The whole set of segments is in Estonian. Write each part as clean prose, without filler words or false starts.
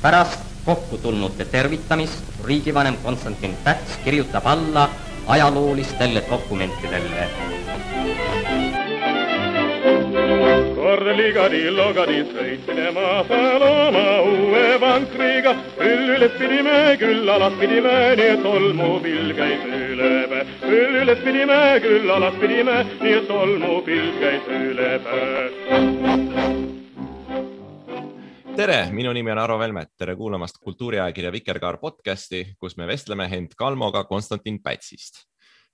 Pärast kokku tulnute tervitamist riigivanem Konstantin Päts kirjutab alla ajaloolistele dokumentidele. Korligadi-logadi sõitsime maasal oma uue vankriga. Küll üles pidime, küll alas pidime, nii et tolmupilv käis üle päe. Küll üles pidime, küll alas pidime, nii et tolmupilv käis üle päe. Tere, minu nimi on Aro Velmet. Tere kuulamast kultuuriajakirja Vikerkaar podcasti, kus me vestleme Hent Kalmoga Konstantin Pätsist.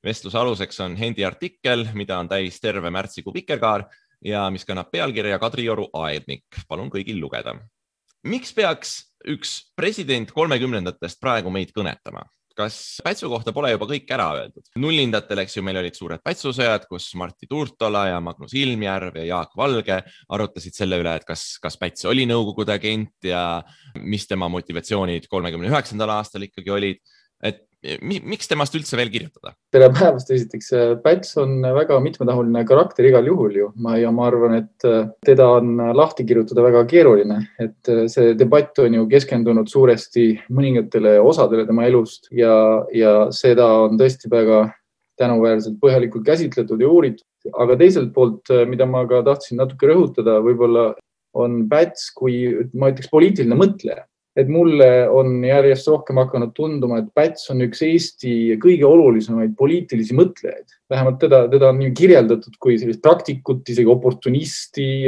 Vestluse aluseks on Hendi artikkel, mida on täis terve märtsikuu Vikerkaar ja mis kannab pealkirja Kadrioru aednik. Palun kõigil lugeda. Miks peaks üks president 30-ndatest praegu meid kõnetama? Kas Pätsu kohta pole juba kõik ära öeldud? Nullindatel, eks ju, meil olid suured Pätsusõjad, kus Martti Tuurtola ja Magnus Ilmjärv ja Jaak Valge arutasid selle üle, et kas Päts oli Nõukogude agent ja mis tema motivatsioonid 39. aastal ikkagi olid. Et miks temast üldse veel kirjutada? Tere päevast esiteks. Päts on väga mitmetahuline karakter igal juhul ju. Ma arvan, et teda on lahti kirjutada väga keeruline. Et see debatt on ju keskendunud suuresti mõningatele osadele tema elust ja seda on tõesti väga tänuväärselt põhjalikult käsitletud ja uuritud. Aga teiselt poolt, mida ma ka tahtsin natuke rõhutada, võib-olla on Päts kui, ma ütleks, poliitiline mõtleja. Et mulle on järjest rohkem hakanud tunduma, et Päts on üks Eesti kõige olulisemaid poliitilisi mõtlejaid. Vähemalt teda on kirjeldatud kui sellist praktikut, isegi oportunisti,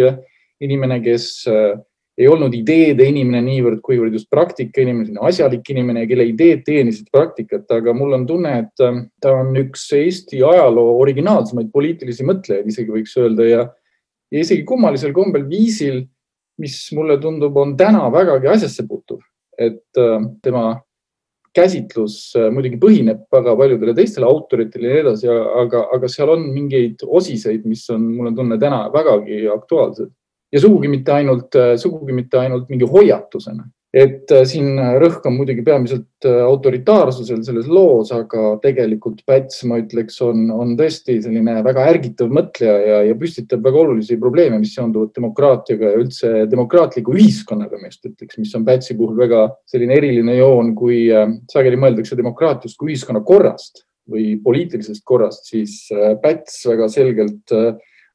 inimene, kes ei olnud ideede inimene niivõrd, kuivõrd just praktika inimene, asjalik inimene, kelle ideed teenisid praktikat. Aga mul on tunne, et ta on üks Eesti ajaloo originaalsemaid poliitilisi mõtlejaid, isegi võiks öelda, ja isegi kummalisel kombel viisil, mis mulle tundub on täna vägagi asjasse puutuv, et tema käsitlus muidugi põhineb väga paljudele teistele autoritele ja edasi, aga seal on mingeid osiseid, mis on mulle tunne täna vägagi aktuaalsed. Ja sugugi mitte ainult mingi hoiatusena. Et siin rõhk on muidugi peamiselt autoritaarsusel selles loos, aga tegelikult Päts, ma ütleks, on tõesti selline väga ärgitav mõtleja ja püstitab väga olulisi probleeme, mis seonduvad demokraatiaga ja üldse demokraatliku ühiskonnaga, mis on Pätsi puhul väga selline eriline joon, kui sageli mõeldakse demokraatiast kui ühiskonna korrast või poliitilisest korrast, siis Päts väga selgelt,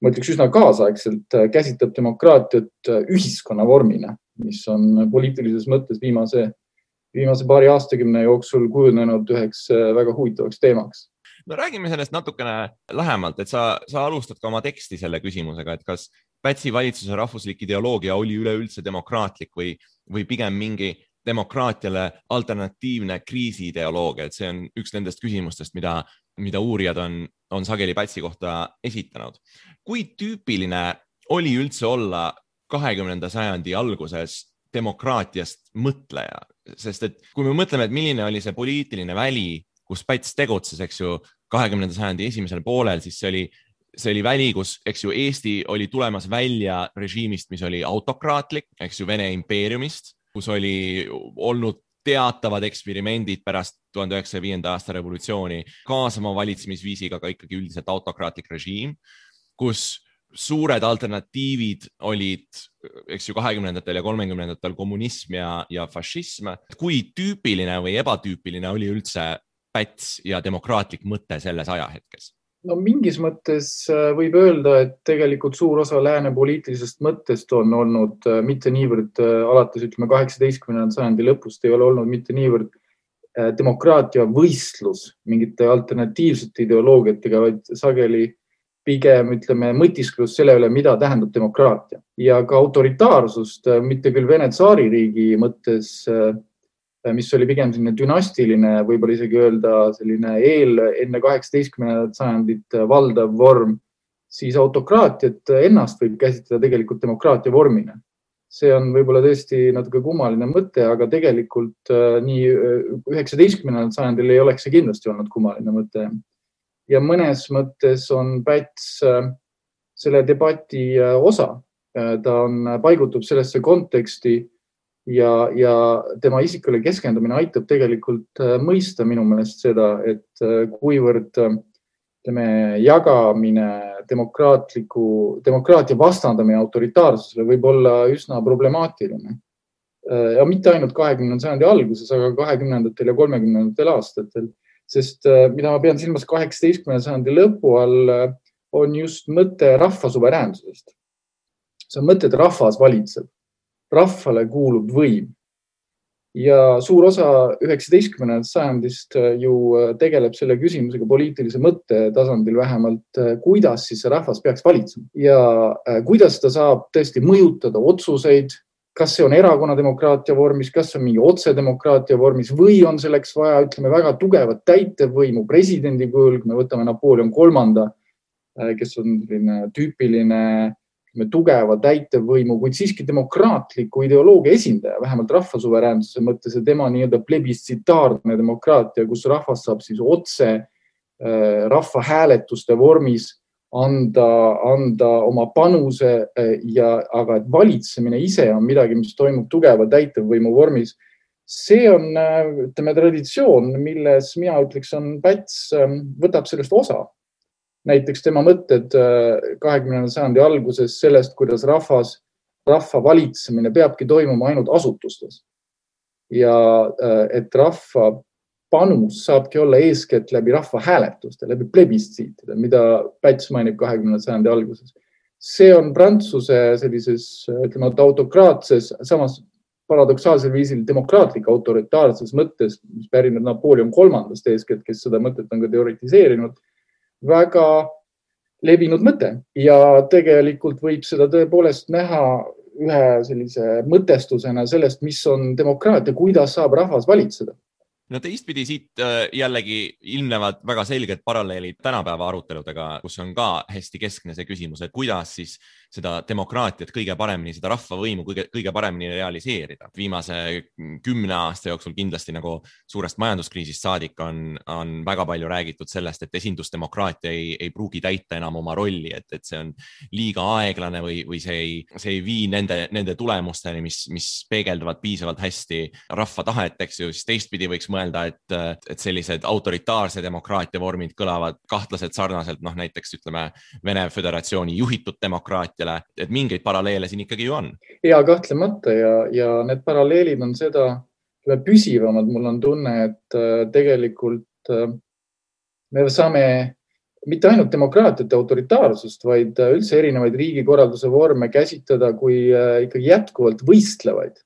ma ütleks üsna kaasaegselt, käsitleb demokraatiat ühiskonna vormina, mis on poliitilises mõttes viimase paari aastakümne jooksul kujunenud üheks väga huvitavaks teemaks. No räägime sellest natukene lähemalt, et sa alustad ka oma teksti selle küsimusega, et kas Pätsi valitsuse rahvuslik ideoloogia oli üleüldse demokraatlik või pigem mingi demokraatiale alternatiivne kriisiideoloogia, et see on üks nendest küsimustest, mida uurijad on sageli Pätsi kohta esitanud. Kui tüüpiline oli üldse olla 20. sajandi alguses demokraatiast mõtleja? Sest et kui me mõtleme, et milline oli see poliitiline väli, kus Päts tegutses, eks ju, 20. sajandi esimesel poolel, siis see oli väli, kus, eks ju, Eesti oli tulemas välja režiimist, mis oli autokraatlik, eks ju, Vene impeeriumist, kus oli olnud teatavad eksperimendid pärast 1905. aasta revolutsiooni kaasama valitsemisviisiga ka ikkagi üldiselt autokraatlik režiim, kus suured alternatiivid olid, eks ju, 20. ja 30. kommunism ja fašism. Kui tüüpiline või ebatüüpiline oli üldse Päts ja demokraatlik mõte selles ajahetkes? No mingis mõttes võib öelda, et tegelikult suur osa lääne poliitilisest mõttest on olnud mitte niivõrd alates, 18. sajandi lõpust ei ole olnud mitte niivõrd demokraatia võistlus mingite alternatiivsete ideoloogiatega, vaid sageli pigem, mõtisklus selle üle, mida tähendab demokraatia. Ja ka autoritaarsust, mitte küll Vene tsaaririigi mõttes, mis oli pigem selline dünastiline, võib-olla isegi öelda selline enne 18. sajandit valdav vorm, siis autokraatiat ennast võib käsitleda tegelikult demokraatia vormina. See on võib-olla tõesti natuke kummaline mõte, aga tegelikult nii 19. sajandil ei oleks see kindlasti olnud kummaline mõte. Ja mõnes mõttes on Päts selle debati osa. Ta paigutub sellesse konteksti ja tema isikule keskendumine aitab tegelikult mõista minu meelest seda, et kuivõrd jagamine, demokraatia vastandamine autoritaarsusele võib olla üsna problemaatiline. ja mitte ainult 20. sajandi alguses, aga 20. ja 30. aastatel. Sest mida ma pean silmas 18. sajandi lõpu all, on just mõte rahva suveräänsusest. See on mõte, et rahvas valitseb. Rahvale kuulub võim. Ja suur osa 19. sajandist ju tegeleb selle küsimusega poliitilise mõtte tasandil vähemalt, kuidas siis see rahvas peaks valitsema. Ja kuidas ta saab tõesti mõjutada otsuseid, kas see on erakonnademokraatia vormis, kas see on mingi otsedemokraatia vormis või on selleks vaja, ütleme, väga tugevat täitevvõimu presidendi kujul, kui me võtame Napoleon III, kes on tüüpiline tugeva täitevvõimu, kuid siiski demokraatliku ideoloogia esindaja, vähemalt rahvasuveräänsuse mõttes ja tema nii-öelda plebistsitaarne demokraatia, kus rahvas saab siis otse rahvahääletuste vormis anda oma panuse aga et valitsemine ise on midagi, mis toimub tugeva täitevvõimu vormis. See on, ütleme, traditsioon, milles mina ütleks, on Päts võtab sellest osa. Näiteks tema mõtted 20. sajandi alguses sellest, kuidas rahva valitsemine peabki toimuma ainult asutustes. Ja et rahva panus saabki olla eeskätt läbi rahva hääletuste, läbi plebistsiitide, mida Päts mainib 20. sajandi alguses. See on Prantsuse sellises, ütleme, autokraatses, samas paradoksaalsel viisil demokraatlik autoritaarses mõttes, mis pärineb Napoleon III eeskätt, kes seda mõtet on ka teoritiseerinud, väga levinud mõte ja tegelikult võib seda tõepoolest näha ühe sellise mõtestusena sellest, mis on demokraatia, kuidas saab rahvas valitseda. No teistpidi siit jällegi ilmnevad väga selged paralleelid tänapäeva aruteludega, kus on ka hästi keskne see küsimus, et kuidas siis seda demokraatiat kõige paremini, seda rahvavõimu kõige paremini realiseerida. Viimase 10 aasta jooksul kindlasti nagu suurest majanduskriisist saadik on väga palju räägitud sellest, et esindusdemokraatia ei pruugi täita enam oma rolli, et see on liiga aeglane või see ei vii nende tulemusteni, mis peegelduvad piisavalt hästi rahva tahet, eks ju, siis teistpidi võiks mõelda, et sellised autoritaarse demokraatia vormid kõlavad kahtlaselt sarnaselt, näiteks ütleme Vene Föderatsiooni juhitud demokraatiale, et mingeid paralleele siin ikkagi ju on. Ja kahtlemata ja need paralleelid on seda püsivamad. Mul on tunne, et tegelikult me saame mitte ainult demokraatiat ja autoritaarsust, vaid üldse erinevaid riigikorralduse vorme käsitleda kui ikkagi jätkuvalt võistlevaid,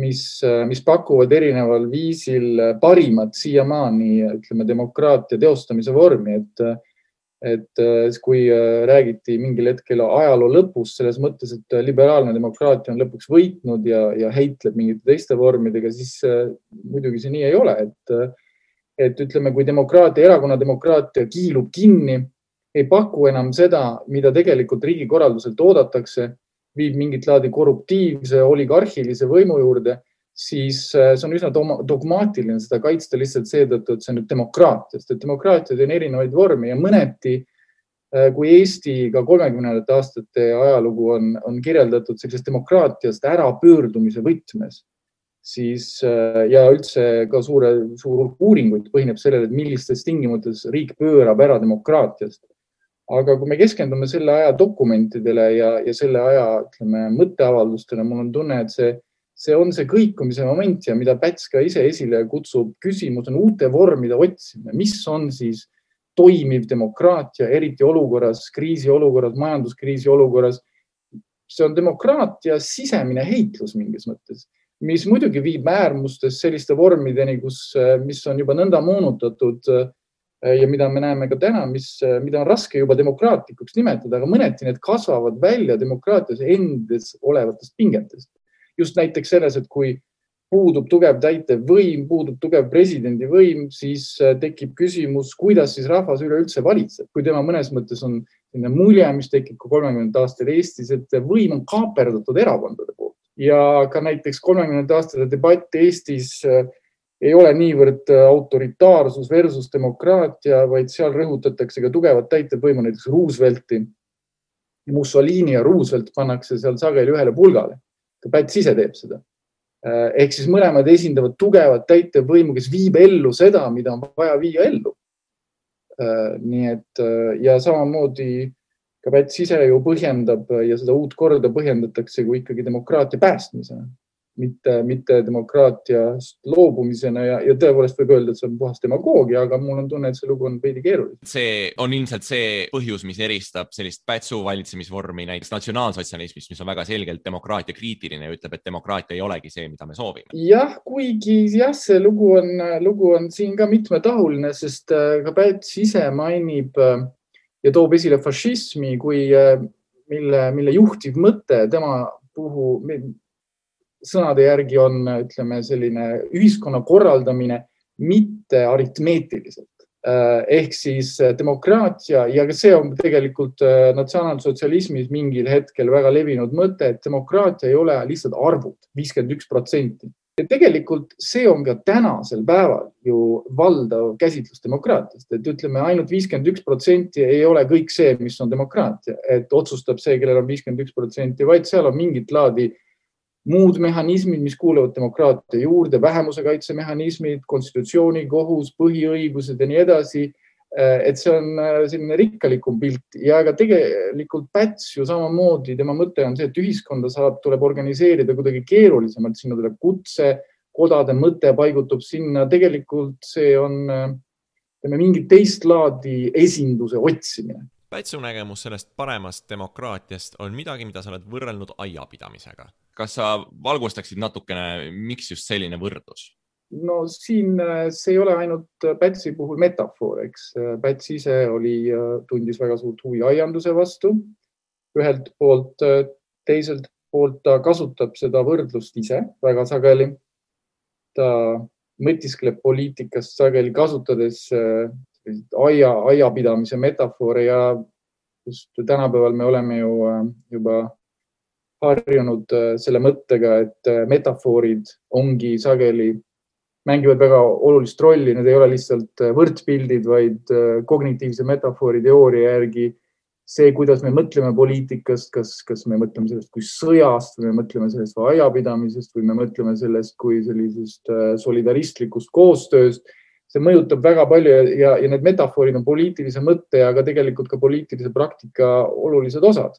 mis pakuvad erineval viisil parimat siiamaani, ütleme, demokraatia teostamise vormi, et kui räägiti mingil hetkel ajaloo lõpus selles mõttes, et liberaalne demokraatia on lõpuks võitnud ja heitleb mingite teiste vormidega, siis muidugi see nii ei ole, et ütleme, kui erakonnademokraatia kiilub kinni, ei paku enam seda, mida tegelikult riigikorralduselt oodatakse, viib mingit laadi korruptiivse, oligarhilise võimu juurde, siis see on üsna dogmaatiline seda kaitsta lihtsalt seetõttu, et see on nüüd demokraatiast. Et demokraatiad on erinevaid vormi ja mõneti, kui Eesti ka 30. aastate ajalugu on kirjeldatud sellisest demokraatiast ära pöördumise võtmes, siis ja üldse ka suur uuringuid põhineb sellele, et millistes tingimustes riik pöörab ära demokraatiast. Aga kui me keskendume selle aja dokumentidele ja selle aja, ütleme, mõtteavaldustele, mul on tunne, et see on see kõikumise moment ja mida Päts ka ise esile kutsub, küsimus on uute vormide otsimine. Mis on siis toimiv demokraatia, eriti olukorras, kriisiolukorras, majanduskriisi olukorras? See on demokraatia sisemine heitlus mingis mõttes, mis muidugi viib äärmustes selliste vormideni, mis on juba nõnda moonutatud ja mida me näeme ka täna, mida on raske juba demokraatlikuks nimetada, aga mõneti need kasvavad välja demokraatias endes olevatest pingetest. Just näiteks selles, et kui puudub tugev täitev võim, puudub tugev presidendi võim, siis tekib küsimus, kuidas siis rahvas üleüldse valitseb. Kui tema mõnes mõttes on mulje, mis tekib ka 30. aastal Eestis, et võim on kaaperdatud erakondade poolt. Ja ka näiteks 30. aastate debatt Eestis ei ole niivõrd autoritaarsus versus demokraatia, vaid seal rõhutatakse ka tugevat täitevvõimu, näiteks Roosevelti. Mussolini ja Roosevelt pannakse seal sageli ühele pulgale. Päts ise teeb seda. Ehk siis mõlemad esindavad tugevat täitevvõimu, kes viib ellu seda, mida on vaja viia ellu. Nii et ja samamoodi ka Päts ise ju põhjendab ja seda uut korda põhjendatakse kui ikkagi demokraatia päästmisena. mitte demokraatiast loobumisena ja tõepoolest võib öelda, et see on puhas demagoogia, aga mul on tunne, et see lugu on veidi keeruline. See on ilmselt see põhjus, mis eristab sellist Pätsu valitsemisvormi näiteks natsionaalsotsialismist, mis on väga selgelt demokraatia kriitiline ja ütleb, et demokraatia ei olegi see, mida me soovime. Jah, kuigi see lugu on siin ka mitmetahuline, sest ka Päts ise mainib ja toob esile fašismi kui mille juhtiv mõte tema puhul sõnade järgi on, ütleme, selline ühiskonna korraldamine mitte aritmeetiliselt. Ehk siis demokraatia ja see on tegelikult natsionaalsotsialismis mingil hetkel väga levinud mõte, et demokraatia ei ole lihtsalt arvud, 51%. Ja tegelikult see on ka tänasel päeval ju valdav käsitlus demokraatiast, et ütleme ainult 51% ei ole kõik see, mis on demokraatia, et otsustab see, kellel on 51%, vaid seal on mingit laadi muud mehhanismid, mis kuuluvad demokraatia juurde, vähemuse kaitsemehhanismid, konstitutsiooni, kohus, põhiõigused ja nii edasi. Et see on selline rikkalikum pilt ja ka tegelikult Päts ju samamoodi, tema mõte on see, et ühiskonda tuleb organiseerida kuidagi keerulisemalt, sinna tuleb kutse, kodade mõte paigutub sinna, tegelikult see on mingit teist laadi esinduse otsimine. Pätsu nägemus sellest paremast demokraatiast on midagi, mida sa oled võrrelnud aiapidamisega. Kas sa valgustaksid natukene, miks just selline võrdlus? No siin see ei ole ainult Pätsi puhul metafoor, eks. Päts ise tundis väga suurt huvi aianduse vastu. Ühelt poolt, teiselt poolt ta kasutab seda võrdlust ise väga sageli. Ta mõtiskleb poliitikast sageli kasutades aiapidamise metafoore ja just tänapäeval me oleme ju juba harjunud selle mõttega, et metafoorid ongi sageli, mängivad väga olulist rolli, need ei ole lihtsalt võrdpildid, vaid kognitiivse metafoori teooria järgi see, kuidas me mõtleme poliitikast, kas me mõtleme sellest kui sõjast või me mõtleme sellest või aiapidamisest või me mõtleme sellest kui sellisest solidaristlikust koostööst. See mõjutab väga palju ja need metafoorid on poliitilise mõtte, aga tegelikult ka poliitilise praktika olulised osad.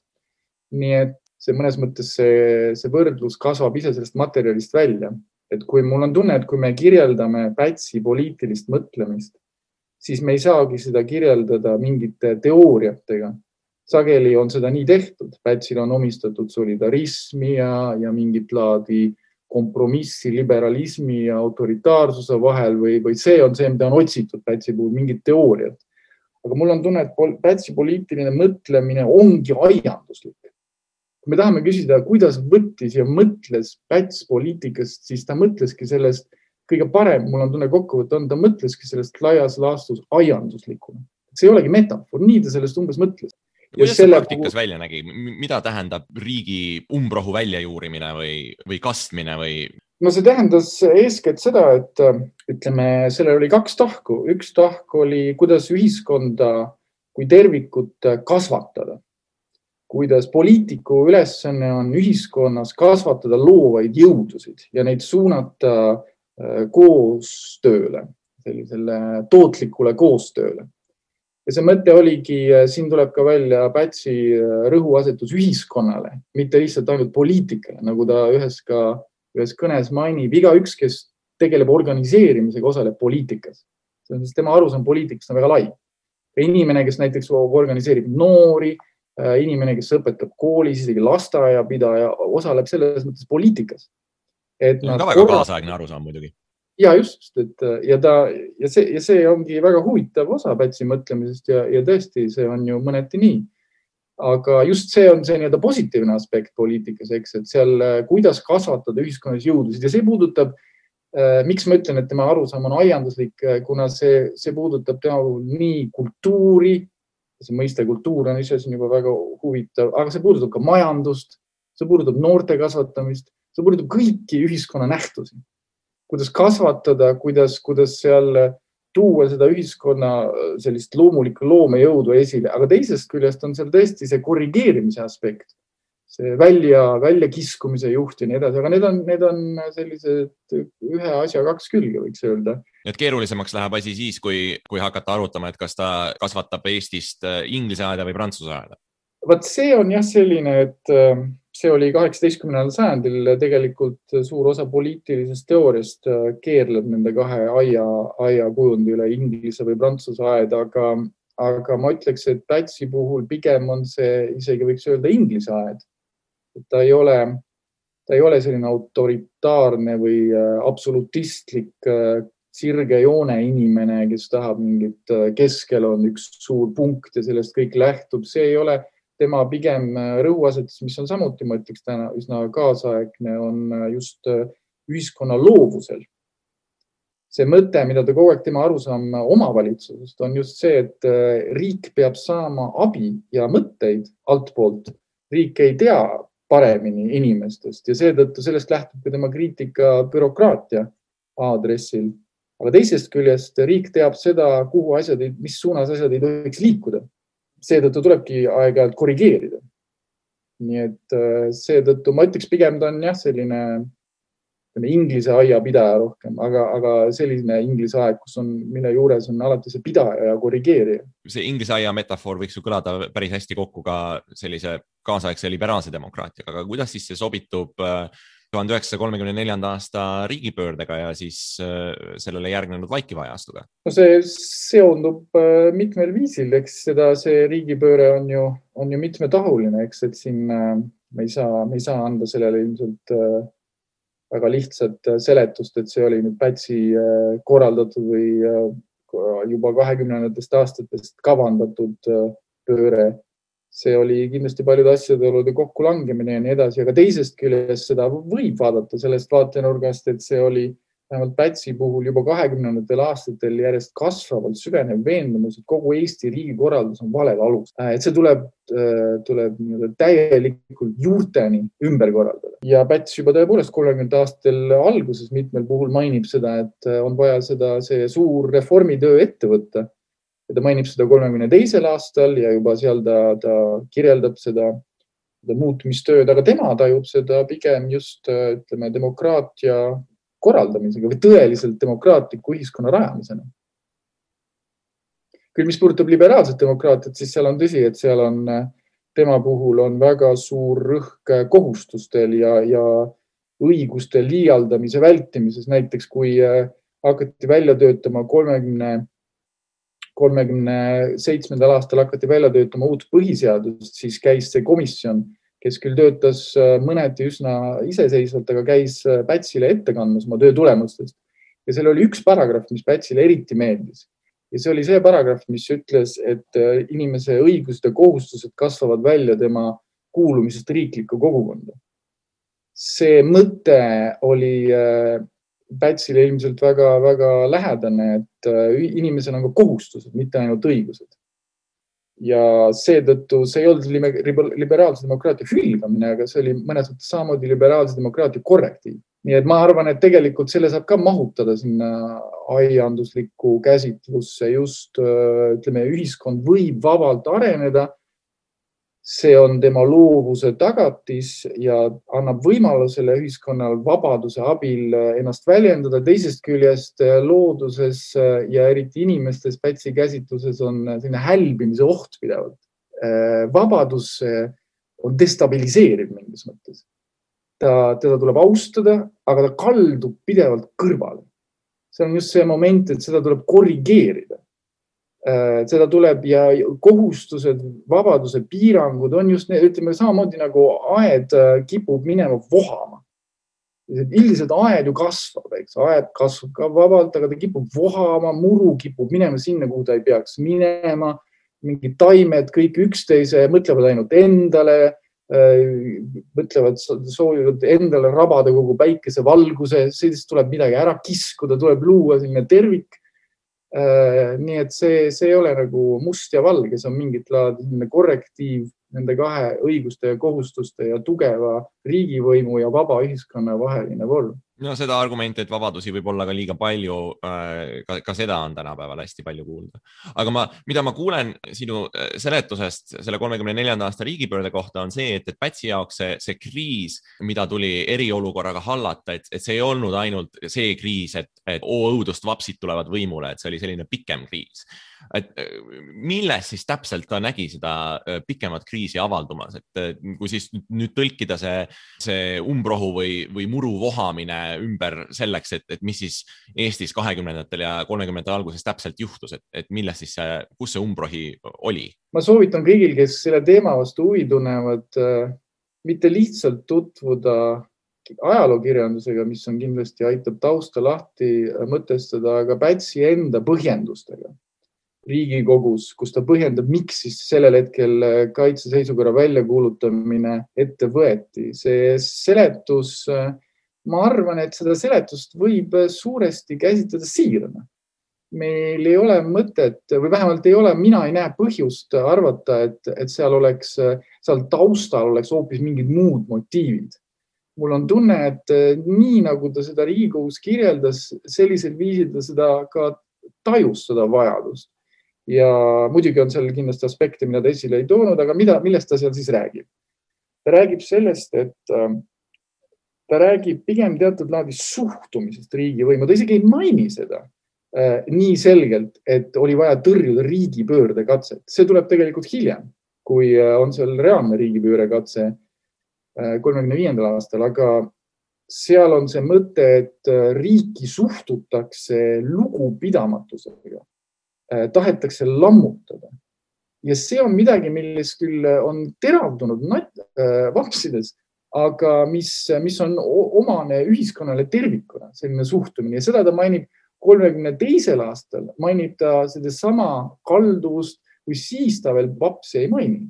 Nii et see mõnes mõttes see võrdlus kasvab ise sellest materjalist välja. Et kui mul on tunne, et kui me kirjeldame Pätsi poliitilist mõtlemist, siis me ei saagi seda kirjeldada mingite teooriatega. Sageli on seda nii tehtud. Pätsil on omistatud solidarismi ja mingit laadi kompromissi liberalismi ja autoritaarsuse vahel või see on see, mida on otsitud Pätsi puhul, mingid teooriad. Aga mul on tunne, et Pätsi poliitiline mõtlemine ongi aianduslik. Kui me tahame küsida, kuidas võttis ja mõtles Päts poliitikast, siis ta mõtleski sellest kõige parem, mul on tunne kokkuvõte on, ta mõtleski sellest laias laastus aianduslikuna. See ei olegi metafoor, nii ta sellest umbes mõtles. Kuidas see praktikas välja nägi? Mida tähendab riigi umbrohu väljajuurimine või kastmine? No see tähendas eeskätt seda, et ütleme, sellel oli kaks tahku. Üks tahk oli, kuidas ühiskonda kui tervikut kasvatada. Kuidas poliitiku ülesanne on ühiskonnas kasvatada loovaid jõudusid ja neid suunata koostööle, sellisele tootlikule koostööle. Ja see mõte oligi, siin tuleb ka välja Pätsi rõhuasetus ühiskonnale, mitte lihtsalt ainult poliitikale, nagu ta ühes kõnes mainib. Igaüks, kes tegeleb organiseerimisega, osaleb poliitikas. Sest tema arusaam poliitikast on väga lai. Inimene, kes näiteks organiseerib noori, inimene, kes õpetab koolis, isegi lasteaiapidaja, osaleb selles mõttes poliitikas. See on ka väga kaasaegne arusaam muidugi. Ja just, ja see ongi väga huvitav osa Pätsi mõtlemisest ja tõesti, see on ju mõneti nii. Aga just see on see nii-öelda positiivne aspekt poliitikas, eks, et seal kuidas kasvatada ühiskonnas jõudusid ja see puudutab, miks ma ütlen, et tema arusaam on aianduslik, kuna see puudutab tema nii kultuuri, see mõiste kultuur on ise siin juba väga huvitav, aga see puudutab ka majandust, see puudutab noorte kasvatamist, see puudutab kõiki ühiskonna nähtusi. Kuidas kasvatada, kuidas seal tuua seda ühiskonna sellist loomulikku loomejõudu esile, aga teisest küljest on seal tõesti see korrigeerimise aspekt, see välja kiskumise juht ja nii edasi, aga need on sellised ühe asja kaks külge, võiks öelda. Et keerulisemaks läheb asi siis, kui hakata arutama, et kas ta kasvatab Eestist inglise aeda või prantsuse aeda? Vaat see on jah selline, et see oli 18. sajandil tegelikult suur osa poliitilisest teooriast keerleb nende kahe aia kujundi üle, Inglise või Prantsuse aed, aga ma ütleks, et Pätsi puhul pigem on see isegi võiks öelda Inglise aed. Ta ei ole selline autoritaarne või absolutistlik sirge joone inimene, kes tahab mingit, keskel on üks suur punkt ja sellest kõik lähtub. See ei ole tema pigem rõhuasetus, mis on samuti, ma ütleks täna üsna kaasaegne, on just ühiskonna loovusel. See mõte, mida ta kogu aeg tema arusaam omavalitsusest, on just see, et riik peab saama abi ja mõtteid altpoolt. Riik ei tea paremini inimestest ja seetõttu sellest lähtub ka tema kriitika bürokraatia aadressil. Aga teisest küljest riik teab seda, mis suunas asjad ei tohiks liikuda. Seetõttu tulebki aeg-ajalt korrigeerida. Nii et seetõttu ma ütleks pigem ta on selline Inglise aiapidaja rohkem, aga selline Inglise aeg, mille juures on alati see pidaja ja korrigeerija. See Inglise aia metafoor võiks ju kõlada päris hästi kokku ka sellise kaasaegse liberaalse demokraatiaga, aga kuidas siis see sobitub 1934. aasta riigipöördega ja siis sellele järgnenud vaikiva ajastuga? No see seondub mitmel viisil, eks see riigipööre on ju mitmetahuline, eks, et siin me ei saa anda sellele ilmselt väga lihtsat seletust, et see oli nüüd Pätsi korraldatud või juba 20. aastatest kavandatud pööre. See oli kindlasti paljude asjade kokkulangemine ja nii edasi, aga teisest küljest seda võib vaadata sellest vaatenurgast, et see oli vähemalt Pätsi puhul juba 20. aastatel järjest kasvavalt süvenev veendumus, et kogu Eesti riigikorraldus on valel alus. Et see tuleb täielikult juurteni ümber korraldada. Ja Päts juba tõepoolest 30. aastatel alguses mitmel puhul mainib seda, et on vaja see suur reformitöö ette võtta. Ja ta mainib seda 32. aastal ja juba seal ta kirjeldab seda muutumistööd, aga tema tajub seda pigem just demokraatia korraldamisega või tõeliselt demokraatliku ühiskonna rajamisena. Küll mis puudutab liberaalset demokraatiat, siis seal on tõsi, et seal on tema puhul on väga suur rõhk kohustustel ja õiguste liialdamise vältimises. Näiteks kui hakati välja töötama 37. aastal hakati välja töötama uut põhiseadust, siis käis see komisjon, kes küll töötas mõneti üsna iseseisvalt, aga käis Pätsile ette kandmas oma töö tulemustest. Ja seal oli üks paragrahv, mis Pätsile eriti meeldis. Ja see oli see paragrahv, mis ütles, et inimese õigused ja kohustused kasvavad välja tema kuulumisest riiklikku kogukonda. See mõte oli Pätsile ilmselt väga lähedane, et inimesel on ka kohustused, mitte ainult õigused. Ja seetõttu see ei olnud liberaalse demokraatia hülgamine, aga see oli mõnes mõttes samamoodi liberaalse demokraatia korrektiiv. Nii et ma arvan, et tegelikult selle saab ka mahutada sinna aianduslikku käsitlusse. Just ühiskond võib vabalt areneda. See on tema loovuse tagatis ja annab võimalusele ühiskonnal vabaduse abil ennast väljendada. Teisest küljest looduses ja eriti inimestes Pätsi käsitluses on selline hälbimise oht pidevalt. Vabadus on destabiliseeriv mingis mõttes. Teda tuleb austada, aga ta kaldub pidevalt kõrvale. See on just see moment, et seda tuleb korrigeerida. Seda tuleb ja kohustused, vabaduse piirangud on just need, ütleme samamoodi nagu aed kipub minema vohama. Üldiselt aed ju kasvab, eks. Aed kasvab ka vabalt, aga ta kipub vohama, muru kipub minema sinna, kuhu ta ei peaks minema. Mingid taimed, kõik üksteise, mõtlevad ainult endale, soovivad endale rabada kogu päikese valguse, sellest tuleb midagi ära kiskuda, tuleb luua selline tervik. Nii et see ei ole nagu must ja valge, see on mingit laadi korrektiiv nende kahe õiguste ja kohustuste ja tugeva riigivõimu ja vaba ühiskonna vaheline vorm. No seda argumenti, et vabadusi võib olla ka liiga palju, ka seda on tänapäeval hästi palju kuulda. Aga mida ma kuulen sinu seletusest selle 34. aasta riigipöörde kohta on see, et Pätsi jaoks see kriis, mida tuli eriolukorraga hallata, et see ei olnud ainult see kriis, et õudust vapsid tulevad võimule, et see oli selline pikem kriis. Et milles siis täpselt ta nägi seda pikemat kriisi avaldumas, et kui siis nüüd tõlkida see umbrohu või muru vohamine ümber selleks, et mis siis Eestis 20. ja 30. alguses täpselt juhtus, et milles siis kus see umbrohi oli? Ma soovitan kõigil, kes selle teema vastu huvi tunnevad, mitte lihtsalt tutvuda ajalookirjandusega, mis on kindlasti aitab tausta lahti mõtestada, aga Pätsi enda põhjendustega Riigikogus, kus ta põhjendab, miks siis sellel hetkel kaitseseisukorra väljakuulutamine ette võeti. See seletus, ma arvan, et seda seletust võib suuresti käsitleda siirana. Meil ei ole mõtet või vähemalt mina ei näe põhjust arvata, et seal taustal oleks hoopis mingid muud motiivid. Mul on tunne, et nii nagu ta seda Riigikogus kirjeldas, sellisel viisil ta seda ka tajus seda vajadust. Ja muidugi on seal kindlasti aspekte, mida ta esile ei toonud, aga millest ta seal siis räägib? Ta räägib sellest, et ta räägib pigem teatud laadi suhtumisest riigivõimu. Ta isegi ei maini seda nii selgelt, et oli vaja tõrjuda riigipöörde katset. See tuleb tegelikult hiljem, kui on seal reaalne riigipöörde katse 35. aastal, aga seal on see mõte, et riiki suhtutakse lugupidamatusega. Tahetakse lammutada. Ja see on midagi, milles küll on teravdunud vapsides, aga mis on omane ühiskonnale tervikuna, selline suhtumine. Ja seda ta mainib 32. aastal, mainib ta seda sama kalduvust, kui siis ta veel vapsi ei maini.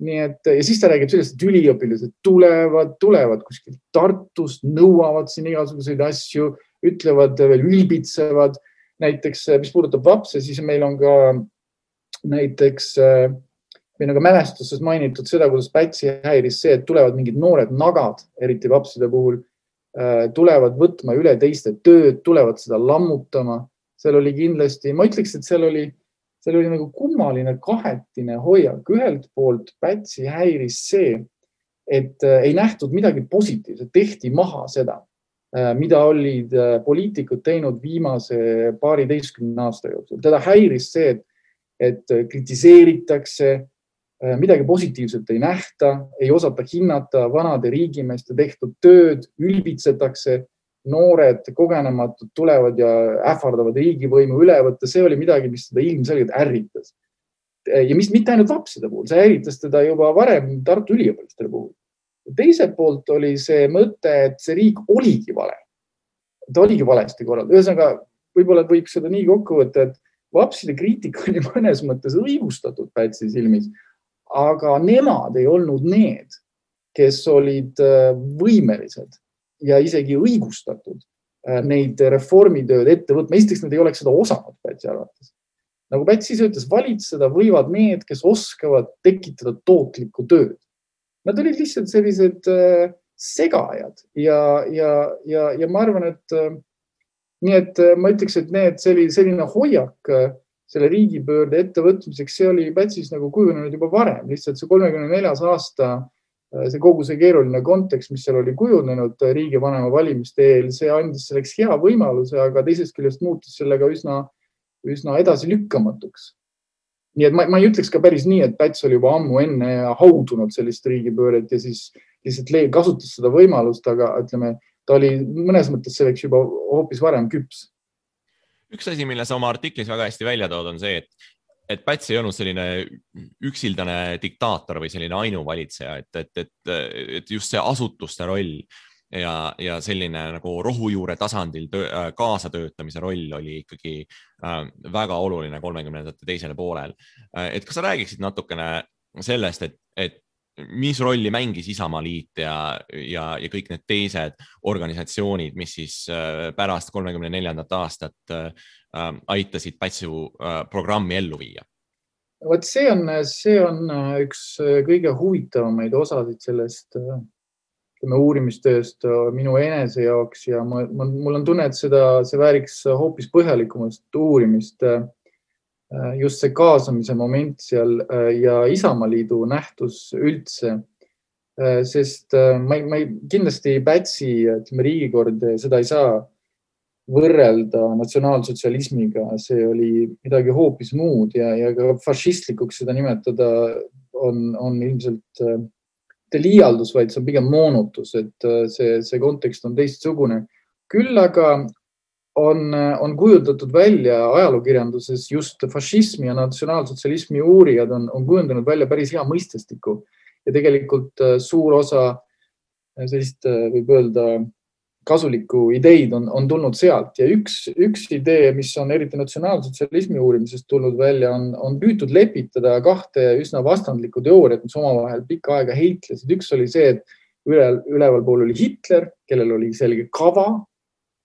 Nii et, ja siis ta räägib sellest, et üliõpilased tulevad kuskilt Tartust, nõuavad siin igasuguseid asju, ütlevad veel ülbitsevad. Näiteks, mis puudutab vapse, siis meil on ka näiteks mälestuses mainitud seda, kuidas Pätsi häiris see, et tulevad mingid noored nagad, eriti vapside puhul, tulevad võtma üle teiste tööd, tulevad seda lammutama. Seal oli kindlasti, ma ütleks, et seal oli nagu kummaline kahetine hoiak. Ühelt poolt Pätsi häiris see, et ei nähtud midagi positiivset, tehti maha seda, mida olid poliitikud teinud viimase 12 aasta jooksul. Teda häiris see, et kritiseeritakse, midagi positiivset ei nähta, ei osata hinnata vanade riigimeeste tehtud tööd, ülbitsetakse, noored kogenematud tulevad ja ähvardavad riigivõimu üle võtta. See oli midagi, mis teda ilmselgelt ärritas. Ja mitte ainult vapside puhul, see ärritas teda juba varem Tartu üliõpilastele puhul. Teiselt poolt oli see mõte, et see riik oligi vale. Ta oligi valesti korraldada. Ühesõnaga, võib-olla võib seda nii kokku võtta, et vapside kriitika oli mõnes mõttes õigustatud Pätsi silmis, aga nemad ei olnud need, kes olid võimelised ja isegi õigustatud neid reformitööd ette võtma. Esiteks nad ei oleks seda osanud Pätsi arvates. Nagu Pätsi ise ütles, valitseda võivad need, kes oskavad tekitada tootlikku tööd. Nad olid lihtsalt sellised segajad ja ma arvan, et ma ütleks, et selline hoiak selle riigipöörde ettevõtmiseks, see oli Pätsis nagu kujunenud juba varem. Lihtsalt see 34. aasta, see kogu see keeruline kontekst, mis seal oli kujunenud riigivanema valimiste eel, see andis selleks hea võimaluse, aga teisest küljest muutis sellega üsna edasi lükkamatuks. Nii et ma ei ütleks ka päris nii, et Päts oli juba ammu enne haudunud sellist riigipööret ja siis lihtsalt kasutas seda võimalust, aga ütleme, ta oli mõnes mõttes selleks juba hoopis varem küps. Üks asi, mille sa oma artiklis väga hästi välja tood, on see, et Päts ei olnud selline üksildane diktaator või selline ainuvalitseja, et just see asutuste roll ja selline nagu rohujuure tasandil kaasatöötamise roll oli ikkagi väga oluline 30. teisele poolel. Et kas sa räägiksid natukene sellest, et mis rolli mängis Isamaaliit ja kõik need teised organisatsioonid, mis siis pärast 34. aastat aitasid Pätsu programmi ellu viia? Vot see on üks kõige huvitavamaid osasid sellest uurimistööst minu enese jaoks ja mul on tunne, et see vääriks hoopis põhjalikumast uurimist. Just see kaasamise moment seal ja Isamaaliidu nähtus üldse. Sest ma kindlasti Pätsi, riigikord, seda ei saa võrrelda natsionaalsotsialismiga. See oli midagi hoopis muud ja ka fašistlikuks seda nimetada on ilmselt liialdus, vaid see on pigem moonutus, et see kontekst on teistsugune. Küll aga on kujutatud välja ajalookirjanduses just fašismi ja natsionaalsotsialismi uurijad on kujundanud välja päris hea mõistestiku ja tegelikult suur osa sellist, võib öelda, kasulikku ideid on tulnud sealt ja üks idee, mis on eriti natsionaalsotsialismi uurimisest tulnud välja, on püütud lepitada kahte üsna vastandlikku teooriat, mis omavahel pikka aega heitlesid. Üks oli see, et üleval pool oli Hitler, kellel oli selge kava,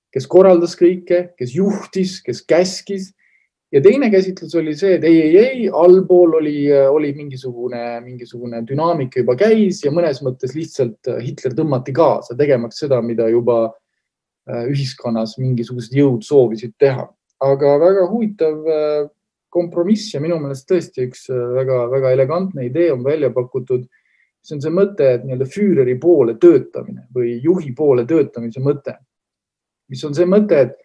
kes korraldas kõike, kes juhtis, kes käskis. Ja teine käsitlus oli see, et ei, allpool oli mingisugune dünaamika juba käis ja mõnes mõttes lihtsalt Hitler tõmmati kaasa, tegemaks seda, mida juba ühiskonnas mingisugused jõud soovisid teha. Aga väga huvitav kompromiss ja minu meelest tõesti üks väga elegantne idee on välja pakutud. See on see mõte, et nii-öelda Führeri poole töötamine või juhi poole töötamise mõte, mis on see mõte, et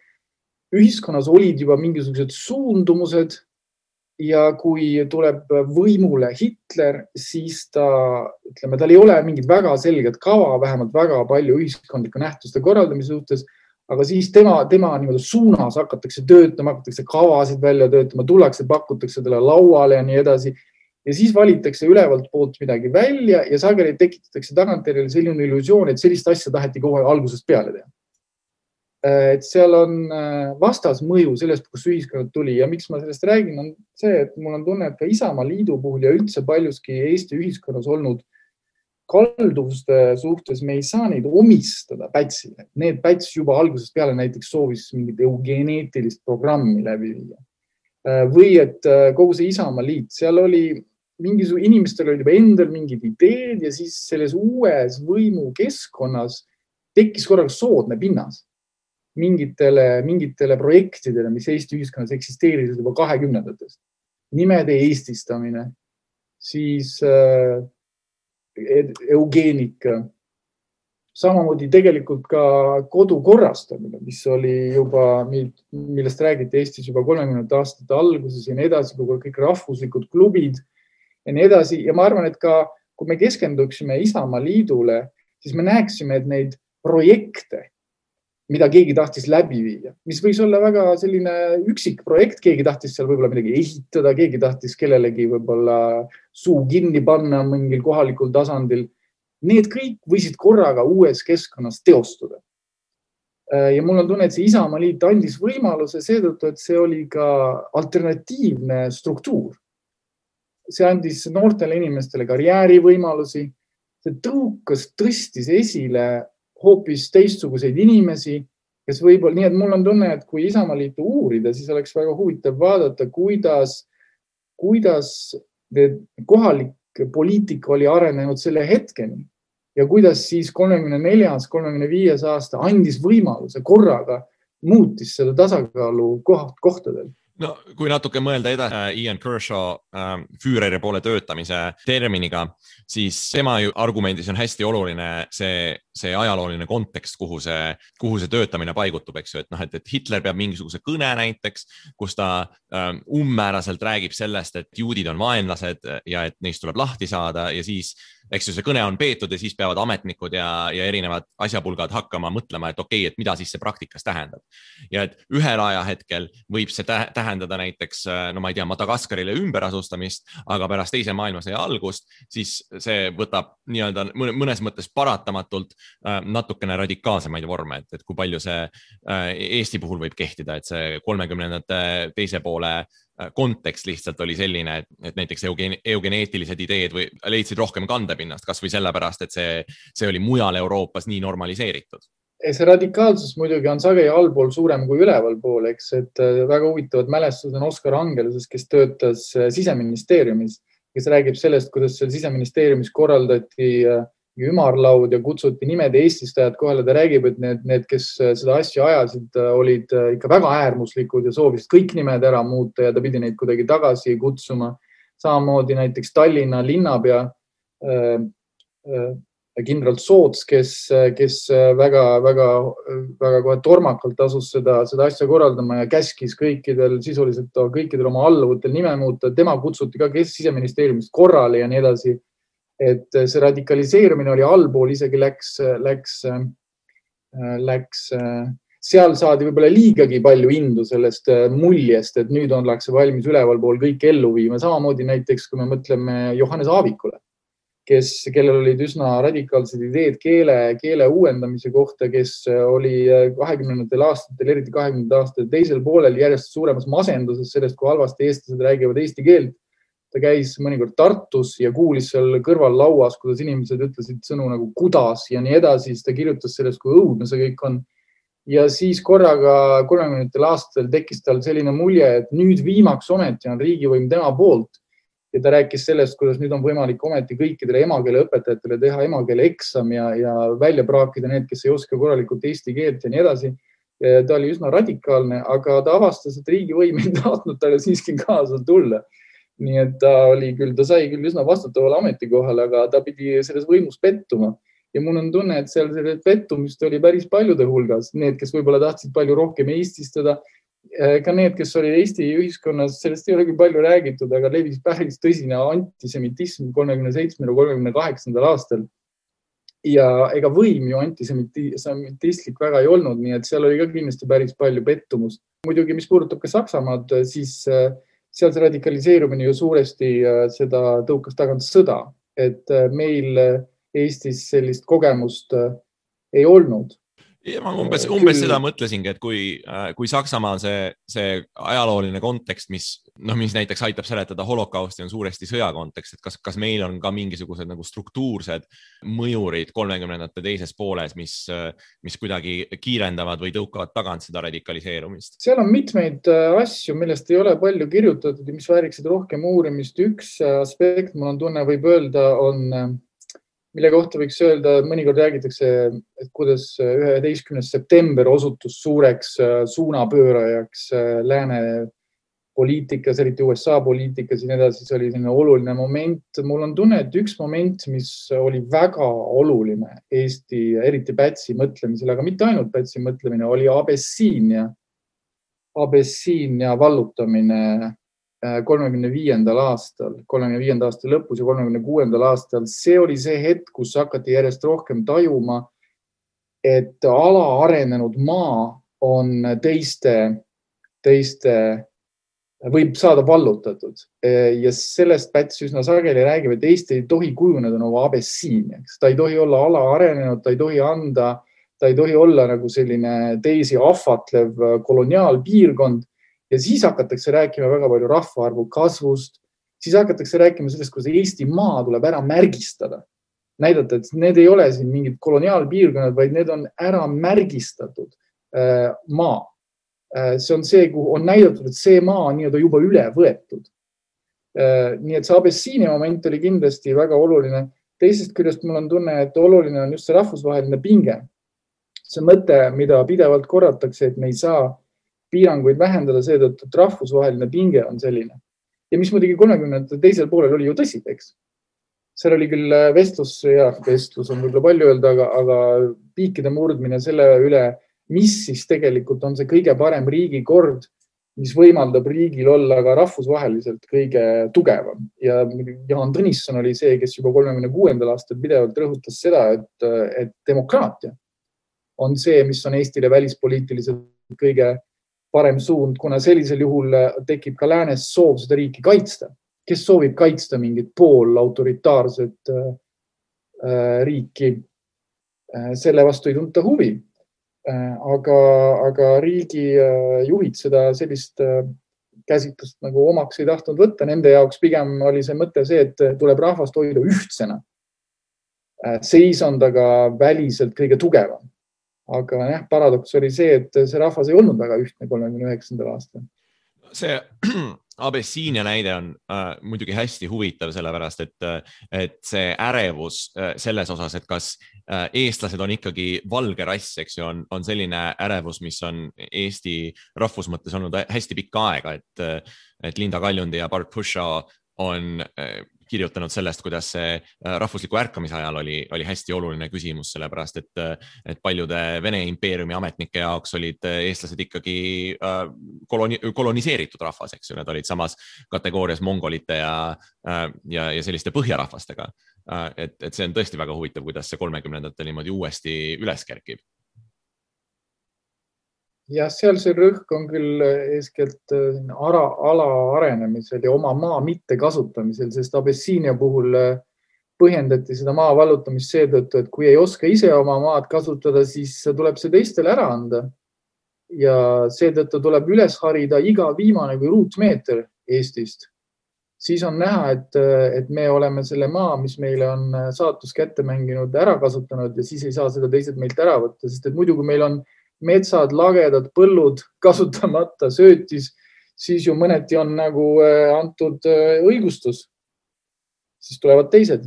ühiskonnas olid juba mingisugused suundumused ja kui tuleb võimule Hitler, siis tal ei ole mingit väga selget kava, vähemalt väga palju ühiskondliku nähtuste korraldamise suhtes, aga siis tema niimoodi suunas hakatakse töötama, hakatakse kavasid välja töötama, tullakse, pakutakse talle lauale ja nii edasi. Ja siis valitakse ülevalt poolt midagi välja ja sageli tekitatakse tagantjärele selline illusioon, et sellist asja taheti kohe algusest peale teha. Et seal on vastasmõju sellest, kus ühiskonnad tuli ja miks ma sellest räägin, on see, et mul on tunne, et ka Isamaaliidu puhul ja üldse paljuski Eesti ühiskonnas olnud kalduvuste suhtes me ei saa neid omistada Pätsile. Need Päts juba algusest peale näiteks soovis mingit eugeneetilist programmi läbi viia. Või et kogu see Isamaaliit, seal oli inimestel olid juba endal mingid ideed ja siis selles uues võimu keskkonnas tekkis korraga soodne pinnas mingitele projektidele, mis Eesti ühiskonnas eksisteerisid juba 20-ndatest. Nimede eestistamine, siis eugeenika, samamoodi tegelikult ka kodu korrastamine, mis oli juba, millest räägiti Eestis juba 30 aastate alguses ja nii edasi, kõik rahvuslikud klubid ja nii edasi. Ja ma arvan, et ka kui me keskenduksime Isamaaliidule, siis me näeksime, et neid projekte, mida keegi tahtis läbi viia, mis võis olla väga selline üksik projekt, keegi tahtis seal võib-olla midagi ehitada, keegi tahtis kellelegi võib-olla suu kinni panna mingil kohalikul tasandil. Need kõik võisid korraga uues keskkonnas teostuda. Ja mul on tunne, et see Isamaaliit andis võimaluse seetõttu, et see oli ka alternatiivne struktuur. See andis noortele inimestele karjäärivõimalusi, see tõstis esile hoopis teistsuguseid inimesi, kes võib-olla, nii et mul on tunne, et kui Isamaaliitu uurida, siis oleks väga huvitav vaadata, kuidas kohalik poliitika oli arenenud selle hetkeni ja kuidas siis 34-35 aasta andis võimaluse korraga muutis seda tasakaalu kohtadel. No, kui natuke mõelda edasi Ian Kershaw Führeri poole töötamise terminiga, siis tema argumendis on hästi oluline see ajalooline kontekst, kuhu see töötamine paigutub, eks ju, et Hitler peab mingisuguse kõne näiteks, kus ta ummääraselt räägib sellest, et juudid on vaenlased ja et neist tuleb lahti saada ja siis eks ju see kõne on peetud ja siis peavad ametnikud ja erinevad asjapulgad hakkama mõtlema, et okei, et mida siis see praktikas tähendab. Ja et ühel ajahetkel võib see tähendada näiteks, no ma ei tea, Madagaskarile ümberasustamist, aga pärast teise maailmasõja algust, siis see võtab nii-öelda mõnes mõttes paratamatult natukene radikaalsemaid vorme, et kui palju see Eesti puhul võib kehtida, et see 30-ndate teise poole kontekst lihtsalt oli selline, et näiteks eugeneetilised ideed leidsid rohkem kandepinnast, kas või sellepärast, et see oli mujal Euroopas nii normaliseeritud. See radikaalsus muidugi on sageli allpool suurem kui üleval pool, eks, et väga huvitavad mälestused on Oskar Angeluses, kes töötas Siseministeeriumis, kes räägib sellest, kuidas seal Siseministeeriumis korraldati ümarlaud ja kutsuti nimede eestistajad kohale. Ta räägib, et need, kes seda asja ajasid, olid ikka väga äärmuslikud ja soovisid kõik nimed ära muuta ja ta pidi neid kuidagi tagasi kutsuma. Samamoodi näiteks Tallinna linnapea kindral Soots, kes väga kohe tormakalt asus seda asja korraldama ja käskis sisuliselt kõikidel oma alluvutel nime muuta. Tema kutsuti ka Siseministeeriumist korrale ja nii edasi. Et see radikaliseerumine oli allpool, isegi läks, seal saadi võib-olla liigagi palju indu sellest muljest, et nüüd ollakse valmis ülevalpool kõik ellu viima. Samamoodi näiteks, kui me mõtleme Johannes Aavikule, kellel olid üsna radikaalsed ideed keele uuendamise kohta, kes oli 20. aastatel, eriti 20. aastatel teisel poolel järjest suuremas masenduses sellest, kui halvasti eestlased räägivad eesti keelt. Ta käis mõnikord Tartus ja kuulis seal kõrval lauas, kuidas inimesed ütlesid sõnu nagu kudas ja nii edasi. Siis ta kirjutas sellest, kui õudne see kõik on. Ja siis korraga 30. aastatel tekkis tal selline mulje, et nüüd viimaks ometi on riigivõim tema poolt. Ja ta rääkis sellest, kuidas nüüd on võimalik ometi kõikidele emakeele õpetajatele teha emakeele eksam ja välja praakida need, kes ei oska korralikult eesti keelt ja nii edasi. Ta oli üsna radikaalne, aga ta avastas, et riigivõim ei tahtnud talle siiski kaasa tulla. Nii et ta sai küll üsna vastutavale ametikohale, aga ta pidi selles võimus pettuma. Ja mul on tunne, et seal pettumist oli päris paljude hulgas. Need, kes võib-olla tahtsid palju rohkem eestistada, ka need, kes oli Eesti ühiskonnas, sellest ei ole küll palju räägitud, aga levis päris tõsine antisemitism 37-38. aastal. Ja ega võim ju antisemitistlik väga ei olnud, nii et seal oli ka kindlasti päris palju pettumust. Muidugi, mis puudutab ka Saksamaad, siis seal see radikaliseerumine ju suuresti seda tõukas tagant sõda, et meil Eestis sellist kogemust ei olnud. Ja ma umbes seda mõtlesingi, et kui Saksamaal see ajalooline kontekst, mis näiteks aitab seletada holokausti, on suuresti sõjakontekst, et kas meil on ka mingisugused nagu struktuursed mõjurid 30ndate teises pooles, mis kuidagi kiirendavad või tõukavad tagant seda radikaliseerumist? Seal on mitmeid asju, millest ei ole palju kirjutatud ja mis vääriksid rohkem uurimist. Üks aspekt, mul on tunne, võib öelda, mille kohta võiks öelda, mõnikord räägitakse, et kuidas 11. september osutus suureks suunapöörajaks lääne poliitikas, eriti USA poliitikas ja nii edasi. See oli selline oluline moment. Mul on tunne, et üks moment, mis oli väga oluline Eesti, eriti Pätsi mõtlemisel, aga mitte ainult Pätsi mõtlemine, oli Abessiinia vallutamine 35. aastal lõpus ja 36. aastal. See oli see hetk, kus hakati järjest rohkem tajuma, et alaarenenud maa on teiste võib saada vallutatud. Ja sellest Päts üsna sageli räägib, et Eesti ei tohi kujuneda nagu Abessiiniaks. Ta ei tohi olla alaarenenud, ta ei tohi olla nagu selline teisi ahvatlev koloniaalpiirkond. Ja siis hakatakse rääkima väga palju rahvaarvu kasvust, siis hakatakse rääkima sellest, kuidas Eesti maa tuleb ära märgistada. Näidata, et need ei ole siin mingid koloniaalpiirkonnad, vaid need on ära märgistatud maa. See on see, kuhu on näidatud, et see maa on juba üle võetud. Nii et see Abessiinia moment oli kindlasti väga oluline. Teisest küljest mul on tunne, et oluline on just see rahvusvaheline pinge. See mõte, mida pidevalt korratakse, et me ei saa piiranguid vähendada seetõttu, et rahvusvaheline pinge on selline. Ja mis muidugi 30. teisel poolel oli ju tõsi, eks. Seal oli küll vestlus on võib-olla palju öelda, aga piikide murdmine selle üle, mis siis tegelikult on see kõige parem riigikord, mis võimaldab riigil olla ka rahvusvaheliselt kõige tugevam. Ja Jaan Tõnisson oli see, kes juba 36. aastal pidevalt rõhutas seda, et demokraatia on see, mis on Eestile välispoliitiliselt kõige parem suund, kuna sellisel juhul tekib ka läänes soov seda riiki kaitsta. Kes soovib kaitsta mingit pool autoritaarset riiki, selle vastu ei tunta huvi. Aga riigi juhid seda sellist käsitlust nagu omaks ei tahtnud võtta. Nende jaoks pigem oli see mõte see, et tuleb rahvast hoida ühtsena. Seis on ta ka väliselt kõige tugevam. Aga paradoks oli see, et see rahvas ei olnud väga ühtne 39. aastal. See Abessiinia näide on muidugi hästi huvitav, sellepärast et see ärevus selles osas, et kas eestlased on ikkagi valge rass, eks ju, on selline ärevus, mis on Eesti rahvus mõttes olnud hästi pikka aega, et Linda Kaljundi ja Bart Pushaw on kirjutanud sellest, kuidas see rahvusliku ärkamise ajal oli hästi oluline küsimus, sellepärast et paljude Vene impeeriumi ametnike jaoks olid eestlased ikkagi koloniseeritud rahvas, eks ju, need olid samas kategoorias mongolite ja selliste põhjarahvastega. Et see on tõesti väga huvitav, kuidas see 30-ndatel niimoodi uuesti üles kerkib. Ja seal see rõhk on küll eeskätt ala arenemisel ja oma maa mitte kasutamisel, sest Abessiinia puhul põhjendati seda maa vallutamist seetõttu, et kui ei oska ise oma maad kasutada, siis tuleb see teistele ära anda. Ja seetõttu tuleb üles harida iga viimane kui ruutmeeter Eestist. Siis on näha, et me oleme selle maa, mis meile on saatus kätte mänginud, ära kasutanud ja siis ei saa seda teised meilt ära võtta, sest et muidu kui meil on metsad, lagedad, põllud kasutamata, söötis, siis ju mõneti on nagu antud õigustus. Siis tulevad teised.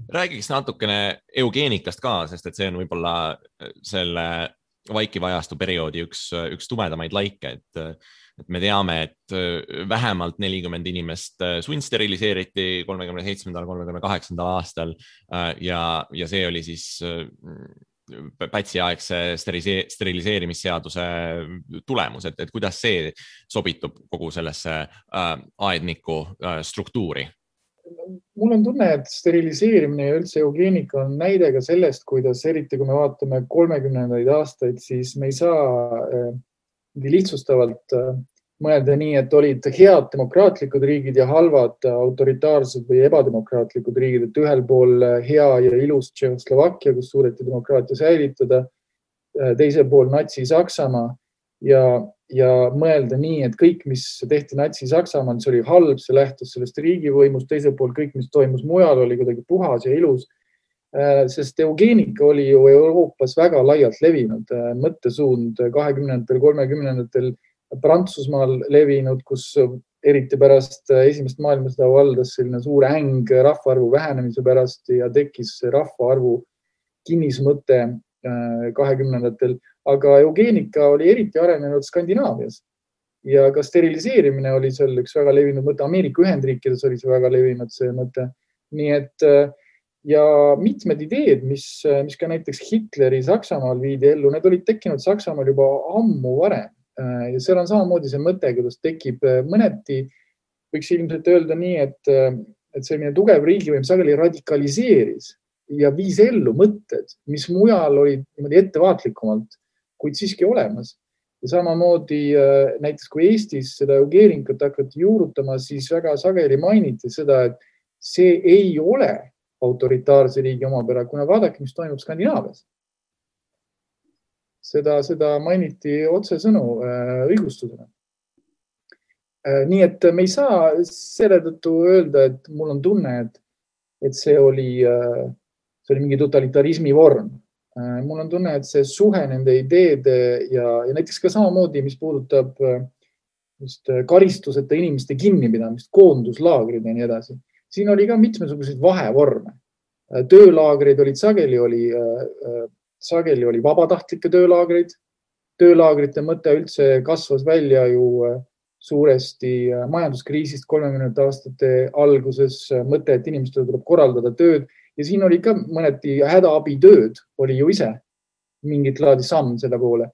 Räägiks natukene eugeenikast ka, sest et see on võib-olla selle vaikiva ajastu perioodi üks tumedamaid laike, et me teame, et vähemalt 40 inimest sundsteriliseeriti 37.–38. aastal ja see oli siis Pätsi-aegse steriliseerimisseaduse tulemus, et kuidas see sobitub kogu sellesse aedniku struktuuri? Mul on tunne, et steriliseerimine ja üldse eugeenika on näide ka sellest, kuidas eriti kui me vaatame 30. aastaid, siis me ei saa lihtsustavalt mõelda nii, et olid head demokraatlikud riigid ja halvad autoritaarsed või ebademokraatlikud riigid, et ühel pool hea ja ilus Tšehhoslovakkia, kus suudeti demokraatia säilitada, teisel pool Natsi-Saksamaa ja mõelda nii, et kõik, mis tehti Natsi-Saksamaal, see oli halb, see lähtus sellest riigivõimust, teisel pool kõik, mis toimus mujal, oli kuidagi puhas ja ilus, sest eugeenika oli ju Euroopas väga laialt levinud mõttesuund 20. 30. Prantsusmaal levinud, kus eriti pärast esimest maailmasõda valdas selline suur äng rahvaarvu vähenemise pärast ja tekkis rahvaarvu kinnismõte 20. Aga eugeenika oli eriti arenenud Skandinaavias ja ka steriliseerimine oli seal üks väga levinud mõte. Ameerika Ühendriikides oli see väga levinud see mõte. Nii et ja mitmed ideed, mis ka näiteks Hitleri Saksamaal viidi ellu, need olid tekkinud Saksamaal juba ammu varem. Ja seal on samamoodi see mõte, kuidas tekib mõneti, võiks ilmselt öelda nii, et selline tugev riigivõim sageli radikaliseeris ja viis ellu mõtted, mis mujal olid niimoodi ettevaatlikumalt, kuid siiski olemas. Ja samamoodi näiteks kui Eestis seda eugeenikut hakati juurutama, siis väga sageli mainiti seda, et see ei ole autoritaarse riigi omapära, kuna vaadake, mis toimub Skandinaavias. Seda mainiti otsesõnu õigustusena. Nii et me ei saa selle tõttu öelda, et mul on tunne, et see oli mingi totalitarismi vorm. Mul on tunne, et see suhe nende ideede ja näiteks ka samamoodi, mis puudutab karistuseta inimeste kinnipidamist, koonduslaagrid ja nii edasi. Siin oli ka mitmesuguseid vahevorme. Töölaagrid olid sageli oli vabatahtlikke töölaagreid. Töölaagrite mõte üldse kasvas välja ju suuresti majanduskriisist 30. aastate alguses mõte, et inimestele tuleb korraldada tööd ja siin oli ka mõneti hädaabitööd oli ju ise mingit laadi samm selle poole.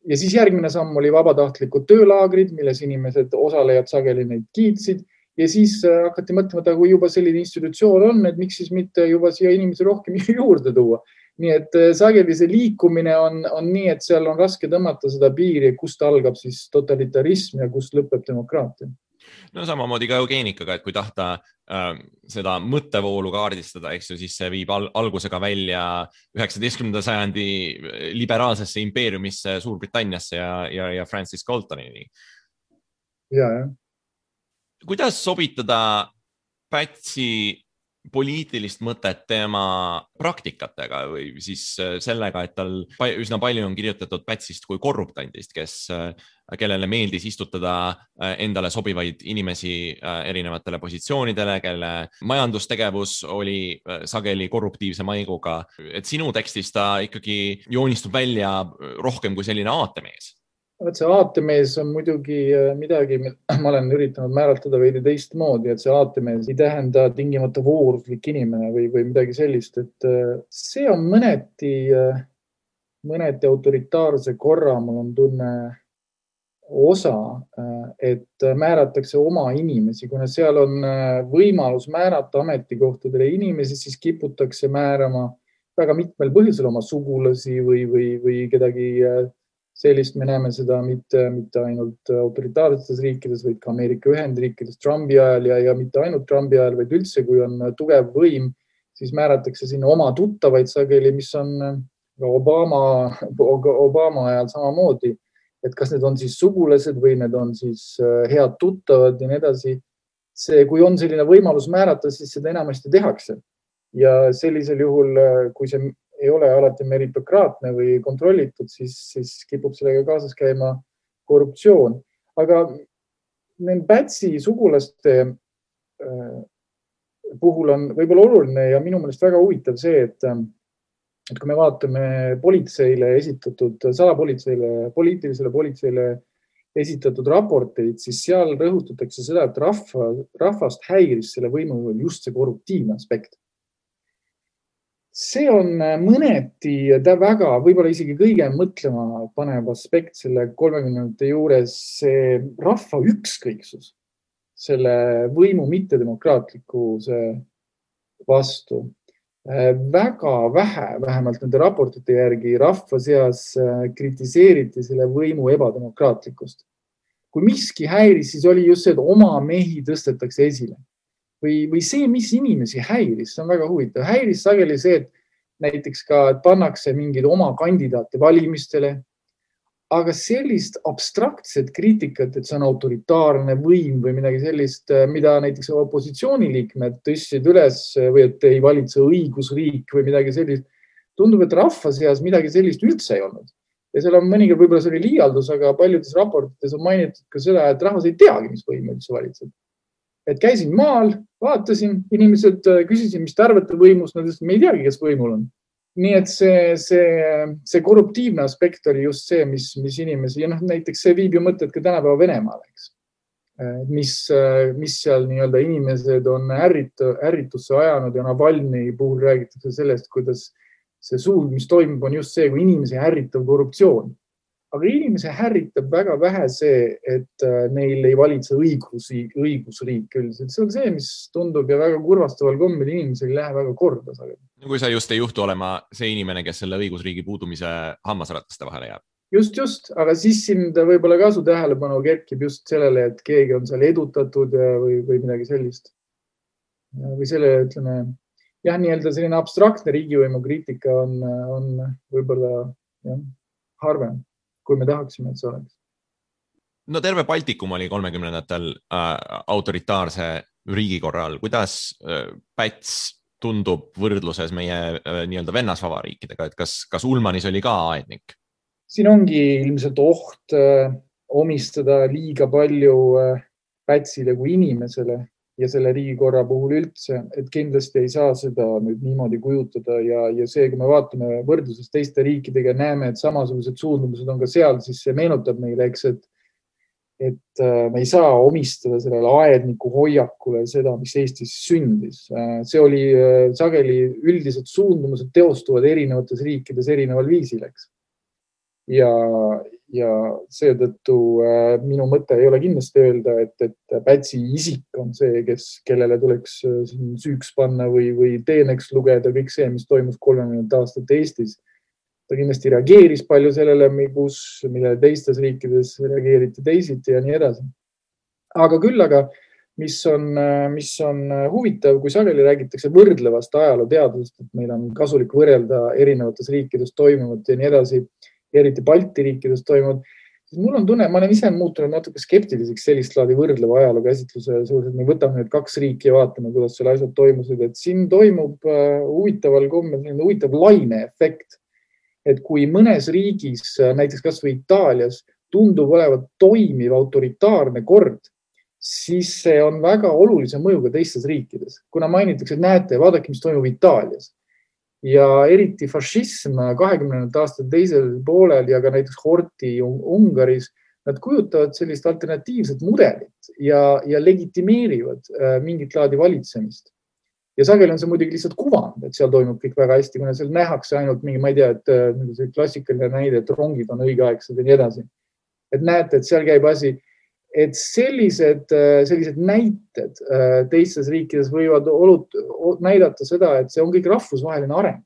Ja siis järgmine samm oli vabatahtlikud töölaagrid, milles inimesed osalejad sageli neid kiitsid ja siis hakati mõtlema, et kui juba selline institutsioon on, et miks siis mitte juba siia inimesi rohkem juurde tuua. Nii et sageli see liikumine on nii, et seal on raske tõmmata seda piiri, kust algab siis totalitarism ja kust lõpeb demokraatia. No samamoodi ka eugeenikaga, et kui tahta seda mõttevoolu kaardistada, eks ju, siis see viib algusega välja 19. sajandi liberaalsesse impeeriumisse Suurbritanniasse ja Francis Galtonini. Ja. Kuidas sobitada Pätsi poliitilist mõtet tema praktikatega või siis sellega, et tal üsna palju on kirjutatud Pätsist kui korruptandist, kes kellele meeldis istutada endale sobivaid inimesi erinevatele positsioonidele, kelle majandustegevus oli sageli korruptiivse maiguga. Et sinu tekstis ta ikkagi joonistub välja rohkem kui selline aatemees. See aatemees on muidugi midagi, ma olen üritanud määratleda veidi teistmoodi, et see aatemees ei tähenda tingimata vooruslik inimene või midagi sellist, et see on mõneti autoritaarse korra, mul on tunne osa, et määratakse oma inimesi, kuna seal on võimalus määrata ametikohtadele inimesi, siis kiputakse määrama väga mitmel põhjusel oma sugulasi või kedagi sellist. Me näeme seda mitte ainult autoritaarsetes riikides, vaid ka Ameerika Ühendriikides Trumpi ajal ja mitte ainult Trumpi ajal, vaid üldse, kui on tugev võim, siis määratakse sinna oma tuttavaid sageli, mis on Obama ajal samamoodi, et kas need on siis sugulased või need on siis head tuttavad ja nii edasi. Kui on selline võimalus määrata, siis seda enamasti tehakse. Ja sellisel juhul, kui see ei ole alati meritokraatne või kontrollitud, siis kipub sellega kaasas käima korruptsioon. Aga Pätsi sugulaste puhul on võib-olla oluline ja minu meelest väga huvitav see, et kui me vaatame politseile esitatud, poliitilisele politseile esitatud raporteid, siis seal rõhutatakse seda, et rahvast häiris selle võimu just see korruptiivne aspekt. See on mõneti väga, võib-olla isegi kõige mõtlema panev aspekt selle 30 juures, see rahva ükskõiksus, selle võimu mittedemokraatlikkuse vastu. Väga vähe, vähemalt nende raportite järgi, rahva seas kritiseeriti selle võimu ebademokraatlikkust. Kui miski häiris, siis oli just see, et oma mehi tõstetakse esile. Või see, mis inimesi häiris, see on väga huvitav. Häiris sageli see, et näiteks ka et pannakse mingid oma kandidaate valimistele, aga sellist abstraktset kriitikat, et see on autoritaarne võim või midagi sellist, mida näiteks opositsiooniliikmed tõstsid üles või et ei valitse õigusriik või midagi sellist, tundub, et rahva seas midagi sellist üldse ei olnud. Ja seal on mõnikord, võib-olla see oli liialdus, aga paljudes raportites on mainitud ka seda, et rahvas ei teagi, mis võim üldse valitseb. Et käisin maal, vaatasin, inimesed küsisin, mis te arvate võimust, nad ütlesid, me ei teagi, kes võimul on. Nii et see korruptiivne aspekt oli just see, mis inimesi, ja näiteks see viib ju mõtted ka tänapäeva Venemaal, eks. Mis seal nii-öelda inimesed on ärritusse ajanud ja Navalny puhul räägitakse sellest, kuidas see suund, mis toimub, on just see, kui inimesi ärritab korruptsioon. Aga inimese härritab väga vähe see, et neil ei valitse õigusriik üldiselt. See on see, mis tundub ja väga kurvastaval kombel inimesel ei lähe väga korda. Kui sa just ei juhtu olema see inimene, kes selle õigusriigi puudumise hammasrataste vahele jääb. Just, aga siis sind võib-olla kasu tähelepanu kerkib just sellele, et keegi on seal edutatud või midagi sellist. Või selle, ütleme, nii-öelda selline abstraktne riigivõimu kriitika on võib-olla harvem, kui me tahaksime, et see oleks. No terve Baltikum oli 30-ndatel autoritaarse riigikorral. Kuidas Päts tundub võrdluses meie nii-öelda vennasvabariikidega, et kas Ulmanis oli ka aednik? Siin ongi ilmselt oht omistada liiga palju Pätsile kui inimesele ja selle riigikorra puhul üldse, et kindlasti ei saa seda nüüd niimoodi kujutada ja see, kui me vaatame võrdluses teiste riikidega, näeme, et samasugused suundumused on ka seal, siis see meenutab meile, eks, et me ei saa omistada sellele aedniku hoiakule seda, mis Eestis sündis. See oli sageli üldised suundumused teostuvad erinevates riikides erineval viisil, eks. Ja seetõttu minu mõte ei ole kindlasti öelda, et Pätsi isik on see, kellele tuleks süüks panna või teeneks lugeda kõik see, mis toimus 30 aastat Eestis. Ta kindlasti reageeris palju sellele, millele teistes riikides reageeriti teisiti ja nii edasi. Aga mis on huvitav, kui sageli räägitakse võrdlevast ajalooteadusest, et meil on kasulik võrrelda erinevates riikides toimuvat ja nii edasi, eriti Balti riikides toimunud, siis mul on tunne, ma olen ise muutunud natuke skeptiliseks sellist laadi võrdleva ajaloo käsitluse suures, et me võtame need 2 riiki ja vaatame, kuidas seal asjad toimusid, et siin toimub huvitaval kombel huvitav laineefekt, et kui mõnes riigis, näiteks kas või Itaalias, tundub olevat toimiv autoritaarne kord, siis see on väga olulise mõjuga teistes riikides. Kuna mainitakse, et näete, vaadake, mis toimub Itaalias. Ja eriti fašism 20. aastate teisel poolel ja ka näiteks Horti Ungaris, nad kujutavad sellist alternatiivset mudelit ja legitimeerivad mingit laadi valitsemist. Ja sageli on see muidugi lihtsalt kuvand, et seal toimub kõik väga hästi, kuna seal nähakse ainult mingi, ma ei tea, et see klassikaline näide, et rongid on õigeaegsed ja nii edasi. Et näete, et seal käib asi, et sellised näited teistes riikides võivad näidata seda, et see on kõik rahvusvaheline areng.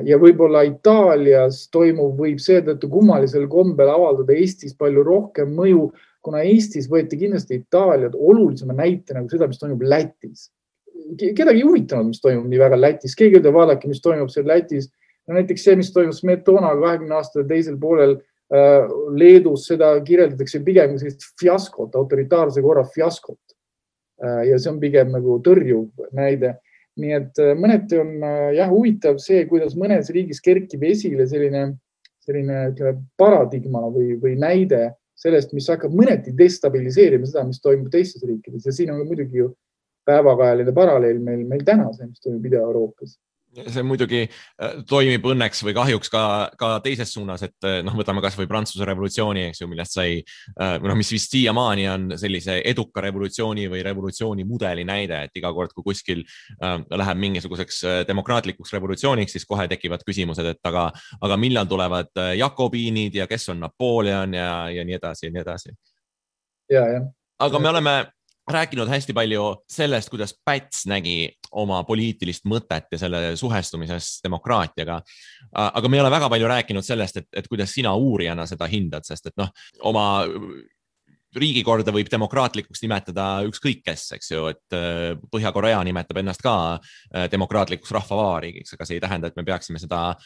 Ja võib-olla Itaalias toimuv võib seetõttu kummalisel kombel avaldada Eestis palju rohkem mõju, kuna Eestis võeti kindlasti Itaaliad olulisema näite nagu seda, mis toimub Lätis. Kedagi huvitanud, mis toimub nii väga Lätis. Keegi ütleb, vaadake, mis toimub seal Lätis. No, näiteks see, mis toimub Smetona 20 aastate teisel poolel Leedus, seda kirjeldatakse pigem sellist fiaskot, autoritaarse korra fiaskot. Ja see on pigem nagu tõrjuv näide. Nii et mõneti on huvitav see, kuidas mõnes riigis kerkib esile selline paradigma või näide sellest, mis hakkab mõneti destabiliseerima seda, mis toimub teistes riikides. Ja siin on muidugi ju päevakajaline paralleel meil täna see, mis toimub Ida-Euroopas. See muidugi toimib õnneks või kahjuks ka teises suunas, et võtame kas või Prantsuse revolutsiooni, eks ju, millest sai, mis vist siiamaani on sellise eduka revolutsiooni või revolutsiooni mudeli näide, et iga kord, kui kuskil läheb mingisuguseks demokraatlikuks revolutsiooniks, siis kohe tekivad küsimused, et aga millal tulevad jakobiinid ja kes on Napoleon ja nii edasi ja nii edasi. Aga me oleme rääkinud hästi palju sellest, kuidas Päts nägi oma poliitilist mõtet ja selle suhestumises demokraatiaga. Aga me ei ole väga palju rääkinud sellest, et kuidas sina uurijana seda hindad, sest et oma riigikorda võib demokraatlikuks nimetada ükskõik kes, eks ju, et Põhja-Korea nimetab ennast ka demokraatlikuks rahvavabariigiks, aga see ei tähenda, et me peaksime seda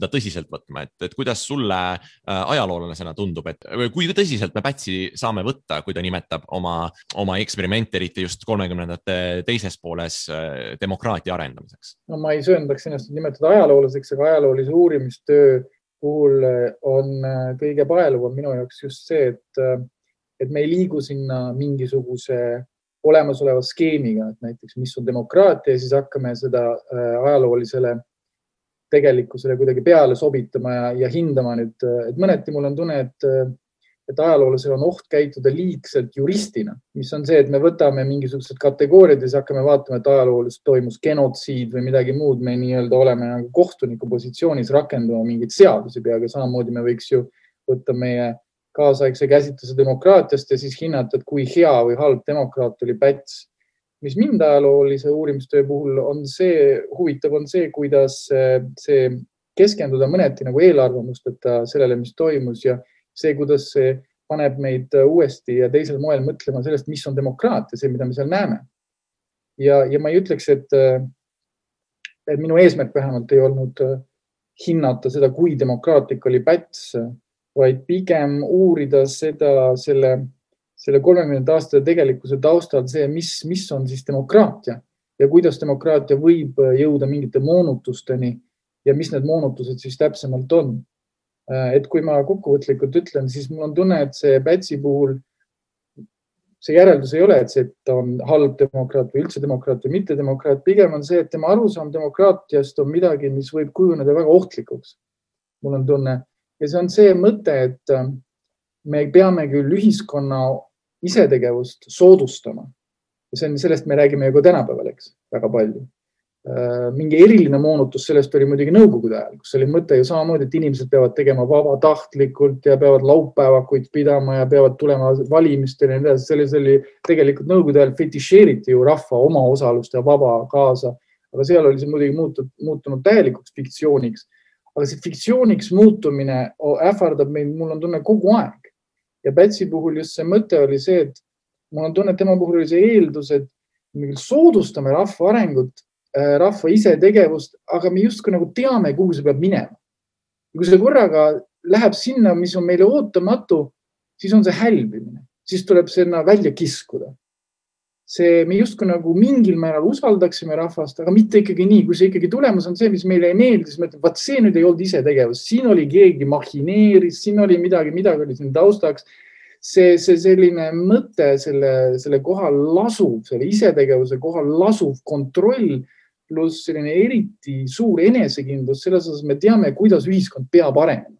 tõsiselt võtma. Et kuidas sulle ajaloolasena tundub, et kui tõsiselt me Pätsi saame võtta, kui ta nimetab oma eksperimente, eriti just 30ndate teises pooles demokraatia arendamiseks? No ma ei sööndaks ennast nimetada ajaloolaseks, aga ajaloolise uurimistöö puhul on kõige paeluvam minu jaoks just see, et me ei liigu sinna mingisuguse olemasoleva skeemiga, et näiteks mis on demokraatia ja siis hakkame seda ajaloolisele tegelikkusele kuidagi peale sobitama ja hindama nüüd. Et mõneti mul on tunne, et ajaloolasel on oht käituda liigselt juristina, mis on see, et me võtame mingisugused kategooriad ja siis hakkame vaatama, et ajalooliselt toimus genotsiid või midagi muud. Me nii-öelda oleme nagu kohtuniku positsioonis rakendama mingeid seadusi peaga. Samamoodi me võiks ju võtta meie kaasaegse käsitluse demokraatiast ja siis hinnata, et kui hea või halb demokraat oli Päts. Mis mind ajaloolise uurimistöö puhul on huvitav on see, kuidas see keskenduda mõneti nagu eelarvamusteta sellele, mis toimus ja see, kuidas see paneb meid uuesti ja teisel moel mõtlema sellest, mis on demokraatia, see, mida me seal näeme. Ja ma ei ütleks, et minu eesmärk vähemalt ei olnud hinnata seda, kui demokraatlik oli Päts, vaid pigem uurida selle 30 aastate tegelikkuse taustal see, mis on siis demokraatia ja kuidas demokraatia võib jõuda mingite moonutusteni ja mis need moonutused siis täpsemalt on. Et kui ma kokkuvõtlikult ütlen, siis mul on tunne, et see Pätsi puhul see järeldus ei ole, et ta on halb demokraat või üldse demokraat või mitte demokraat. Pigem on see, et tema arusaam demokraatiast on midagi, mis võib kujuneda väga ohtlikuks. Mul on tunne. Ja see on see mõte, et me peame küll ühiskonna isetegevust soodustama. Ja sellest me räägime ju ka tänapäeval, eks, väga palju. Mingi eriline moonutus sellest oli muidugi nõukogude ajal, kus oli mõte ju samamoodi, et inimesed peavad tegema vabatahtlikult ja peavad laupäevakuid pidama ja peavad tulema valimistele ja nii edasi. Selles oli tegelikult nõukogude ajal fetišeeriti ju rahva oma osalust ja vaba kaasa, aga seal oli see muidugi muutunud täielikuks fiktsiooniks. Aga see fiktsiooniks muutumine ähvardab meid, mul on tunne kogu aeg. Ja Pätsi puhul just see mõte oli see, et mul on tunne, et tema puhul oli see eeldus, et me soodustame rahva arengut, rahva isetegevust, aga me justkui nagu teame, kuhu see peab minema. Ja kui see korraga läheb sinna, mis on meile ootamatu, siis on see hälbimine. Siis tuleb sinna välja kiskuda. me justkui nagu mingil määral usaldaksime rahvast, aga mitte ikkagi nii, kui see ikkagi tulemus on see, mis meile ei meeldi, siis me ütleme, vaat see nüüd ei olnud isetegevus, siin oli keegi mahineeris, siin oli midagi oli siin taustaks. See selline mõte selle kohal lasub, selle isetegevuse kohal lasub kontroll pluss selline eriti suur enesekindlus, selles osas me teame, kuidas ühiskond peab arenema.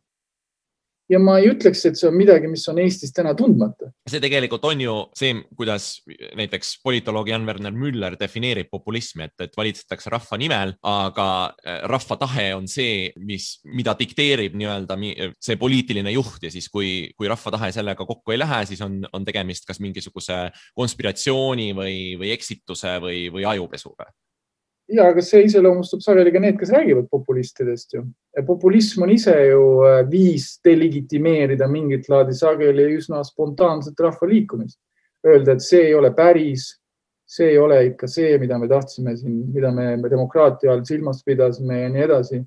Ja ma ei ütleks, et see on midagi, mis on Eestis täna tundmata. See tegelikult on ju see, kuidas näiteks politoloog Jan-Werner Müller defineerib populismi, et valitsetakse rahva nimel, aga rahva tahe on see, mida dikteerib nii-öelda see poliitiline juht ja siis kui rahva tahe sellega kokku ei lähe, siis on tegemist kas mingisuguse konspiratsiooni või eksituse või ajupesuga. Ja, aga see iseloomustab sageli ka need, kes räägivad populistidest ju. Populism on ise ju viis delegitimeerida mingit laadi sageli üsna spontaanset rahvaliikumist. Öelda, et see ei ole päris, see ei ole ikka see, mida me tahtsime siin, mida me demokraatia all silmas pidasime ja nii edasi.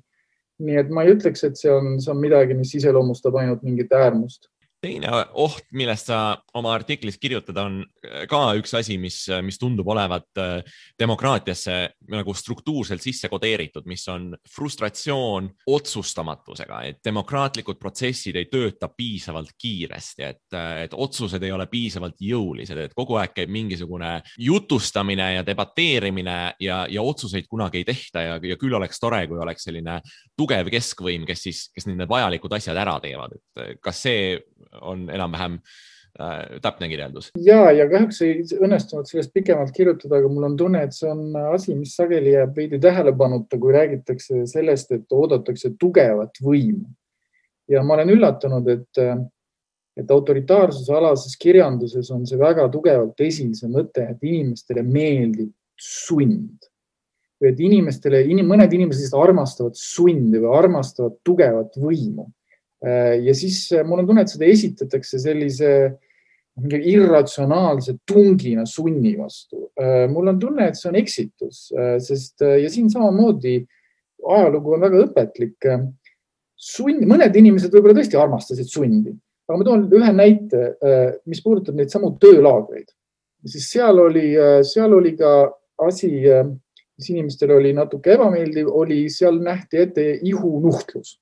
Nii et ma ei ütleks, et see on midagi, mis iseloomustab ainult mingit äärmust. Teine oht, millest sa oma artiklis kirjutad, on ka üks asi, mis tundub olevat demokraatiasse nagu struktuurselt sisse kodeeritud, mis on frustratsioon otsustamatusega, et demokraatlikud protsessid ei tööta piisavalt kiiresti, et otsused ei ole piisavalt jõulised, et kogu aeg käib mingisugune jutustamine ja debateerimine ja otsuseid kunagi ei tehta ja küll oleks tore, kui oleks selline tugev keskvõim, kes need vajalikud asjad ära teevad. Kas see on enam-vähem täpne kirjeldus? Ja kahjuks ei õnnestunud sellest pikemalt kirjutada, aga mul on tunne, et see on asi, mis sageli jääb veidi tähelepanuta, kui räägitakse sellest, et oodatakse tugevat võimu. Ja ma olen üllatunud, et autoritaarsuse alases kirjanduses on see väga tugevalt esil see mõte, et inimestele meeldib sund. Või et mõned inimesed armastavad sundi või armastavad tugevat võimu. Ja siis mul on tunne, et seda esitatakse sellise irratsionaalse tungina sunni vastu. Mul on tunne, et see on eksitus, ja siin samamoodi ajalugu on väga õpetlik. Mõned inimesed võib-olla tõesti armastasid sundi, aga ma toon ühe näite, mis puudutab neid samu töölaagreid. Siis seal oli ka asi, mis inimestele oli natuke ebameeldiv, seal nähti ette ihunuhtlus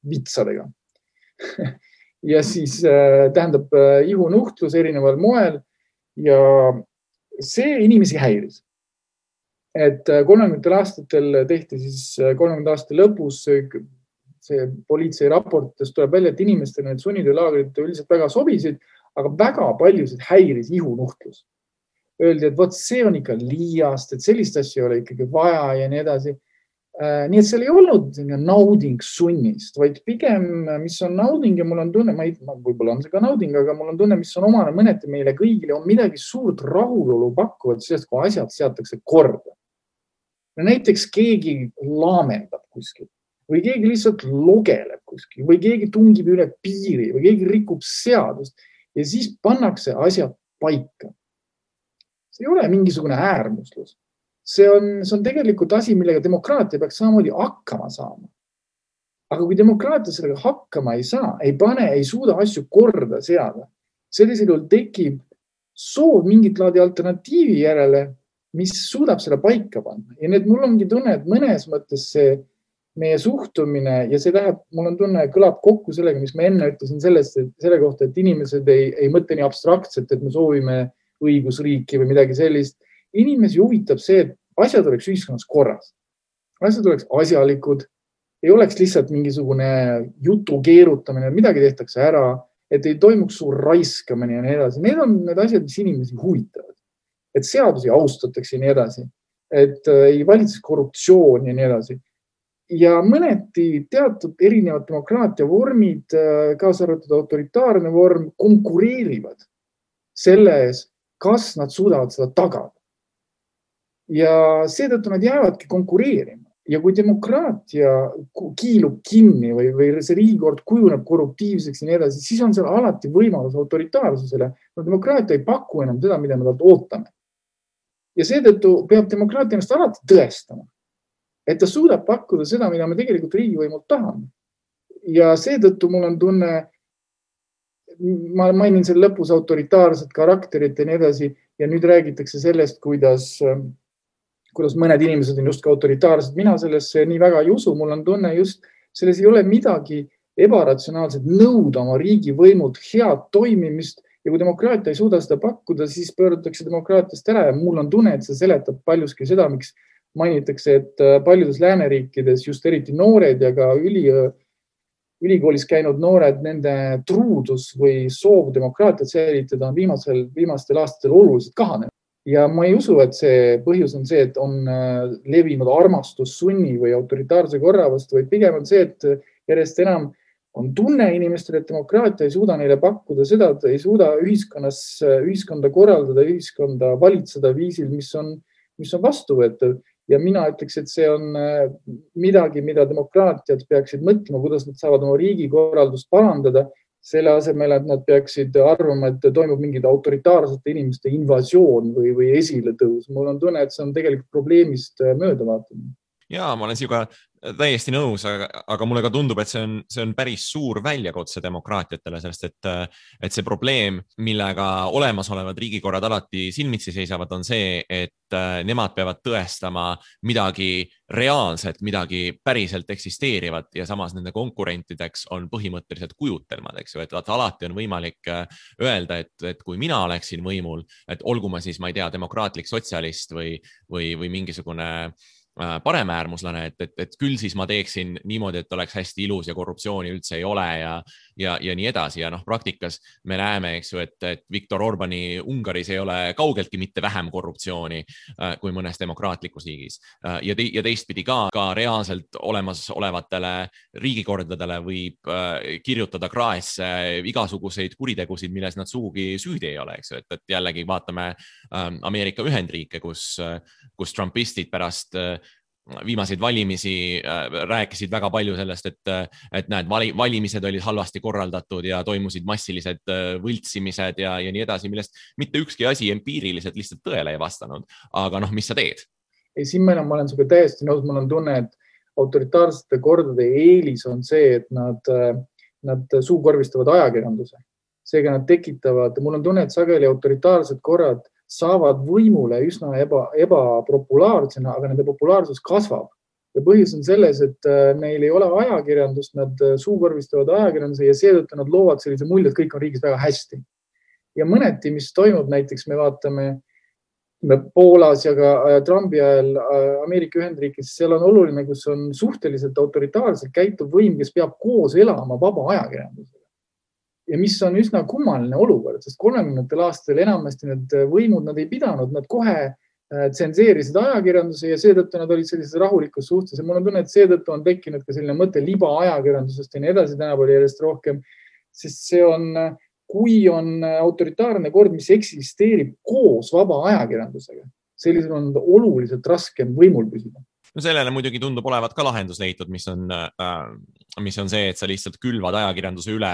vitsadega. Ja siis tähendab ihunuhtlus erineval moel ja see inimesi häiris. Et 30. aastatel tehti siis 30. aasta lõpus see politsei raportist tuleb välja, et inimestele need sunnitöölaagrid üldiselt väga sobisid, aga väga paljusid häiris ihunuhtlus. Öeldi, et see on ikka liiast, et sellist asja ei ole ikkagi vaja ja nii edasi. Nii et seal ei olnud nauding sunnist, vaid pigem, mis on nauding ja mul on tunne, võib-olla on see ka nauding, aga mul on tunne, mis on omane mõneti meile kõigile, on midagi suurt rahulolu pakkuvat sellest, kui asjad seatakse korda. Näiteks keegi laamendab kuskil või keegi lihtsalt logeleb kuskil või keegi tungib üle piiri või keegi rikub seadust ja siis pannakse asjad paika. See ei ole mingisugune äärmuslus. See on tegelikult asi, millega demokraatia peaks samamoodi hakkama saama. Aga kui demokraatia sellega hakkama ei saa, ei suuda asju korda seada, sellisel juhul tekib soov mingit laadi alternatiivi järele, mis suudab selle paika panna. Ja need mul ongi tunne, et mõnes mõttes see meie suhtumine ja see läheb, mul on tunne, kõlab kokku sellega, mis ma enne ütlesin selle kohta, et inimesed ei mõtle nii abstraktselt, et me soovime õigusriiki või midagi sellist. Inimesi huvitab see, et asjad oleks ühiskonnas korras. Asjad oleks asjalikud, ei oleks lihtsalt mingisugune jutu keerutamine, midagi tehtakse ära, et ei toimuks suur raiskamine ja nii edasi. Need on need asjad, mis inimesi huvitavad. Et seadusi austatakse ja nii edasi, et ei valitseks korruptsioon ja nii edasi. Ja mõneti teatud erinevad demokraatia vormid, kaasa arvatud autoritaarne vorm, konkureerivad selles, kas nad suudavad seda tagada. Ja seetõttu nad jäävadki konkureerima. Ja kui demokraatia kiilub kinni või see riigikord kujuneb korruptiivseks ja nii edasi, siis on seal alati võimalus autoritaarsusele. No demokraatia ei paku enam seda, mida me talt ootame. Ja seetõttu peab demokraatia ennast alati tõestama, et ta suudab pakkuda seda, mida me tegelikult riigivõimult tahame. Ja seetõttu mul on tunne, ma mainin selle lõpus autoritaarset karakterit ja nii edasi, ja nüüd räägitakse sellest, kuidas mõned inimesed on just ka autoritaarsed. Mina sellesse nii väga ei usu. Mul on tunne just, selles ei ole midagi ebaratsionaalselt nõuda oma riigivõimult head toimimist ja kui demokraatia ei suuda seda pakkuda, siis pöördutakse demokraatiast ära ja mul on tunne, et see seletab paljuski seda, miks mainitakse, et paljudes lääneriikides just eriti noored ja ka ülikoolis käinud noored, nende truudus või soov demokraatiat säilitada on viimastel aastatel oluliselt kahanenud. Ja ma ei usu, et see põhjus on see, et on levinud armastus sunni või autoritaarse korra vastu, vaid pigem on see, et järjest enam on tunne inimestel, et demokraatia ei suuda neile pakkuda seda, et ei suuda ühiskonda korraldada, ühiskonda valitseda viisil, mis on vastuvõetav. Ja mina ütleks, et see on midagi, mida demokraatiad peaksid mõtlema, kuidas nad saavad oma riigikorraldust parandada, selle asemel, et nad peaksid arvama, et toimub mingid autoritaarsete inimeste invasioon või esiletõus. Mul on tunne, et see on tegelikult probleemist möödavaatamine. Jaa, ma olen sinuga täiesti nõus, aga mulle ka tundub, et see on päris suur väljakutse demokraatiatele, sellest, et see probleem, millega olemasolevad riigikorrad alati silmitsi seisavad, on see, et nemad peavad tõestama midagi reaalset, midagi päriselt eksisteerivat ja samas nende konkurentideks on põhimõtteliselt kujutelmad, eks ju, et alati on võimalik öelda, et kui mina oleksin võimul, et olgu ma siis, ma ei tea, demokraatlik sotsialist või mingisugune paremäärmuslane, et küll siis ma teeksin niimoodi, et oleks hästi ilus ja korruptsiooni üldse ei ole ja nii edasi. Ja praktikas me näeme, eks ju, et Viktor Orbani Ungaris ei ole kaugeltki mitte vähem korruptsiooni kui mõnes demokraatlikus riigis. Ja teistpidi ka reaalselt olemasolevatele riigikordadele võib kirjutada kraesse igasuguseid kuritegusid, milles nad sugugi süüdi ei ole, eks ju, et jällegi vaatame Ameerika Ühendriike, kus trumpistid pärast viimaseid valimisi rääkisid väga palju sellest, et näed, valimised olid halvasti korraldatud ja toimusid massilised võltsimised ja nii edasi, millest mitte ükski asi empiiriliselt lihtsalt tõele ei vastanud. Aga mis sa teed? Ei, siin ma olen sinuga täiesti nõus. Mul on tunne, et autoritaarsete kordade eelis on see, et nad suukorvistavad ajakirjanduse. Seega nad tekitavad, mul on tunne, et sageli autoritaarsed korrad saavad võimule üsna ebapopulaarsena, aga nende populaarsus kasvab. Ja põhjus on selles, et neil ei ole ajakirjandust, nad suukorvistavad ajakirjanduse ja seetõttu nad loovad sellise mulje, et kõik on riigis väga hästi. Ja mõneti, mis toimub, näiteks me vaatame Poolas ja ka Trumpi ajal Ameerika Ühendriigis, seal on oluline, kus on suhteliselt autoritaarselt käituv võim, kes peab koos elama vaba ajakirjandusega. Ja mis on üsna kummaline olukord, sest 30. aastal enamasti need võimud, nad ei pidanud, nad kohe tsenseerisid ajakirjanduse ja seetõttu nad olid sellises rahulikus suhtes. Ja mul on tunne, et seetõttu on tekkinud ka selline mõte liba ajakirjandusest ja nii edasi tänapäeval järjest rohkem, sest see on, kui on autoritaarne kord, mis eksisteerib koos vaba ajakirjandusega, sellisel on oluliselt raskem võimul püsida. Sellele muidugi tundub olevat ka lahendus leitud, mis on see, et sa lihtsalt külvad ajakirjanduse üle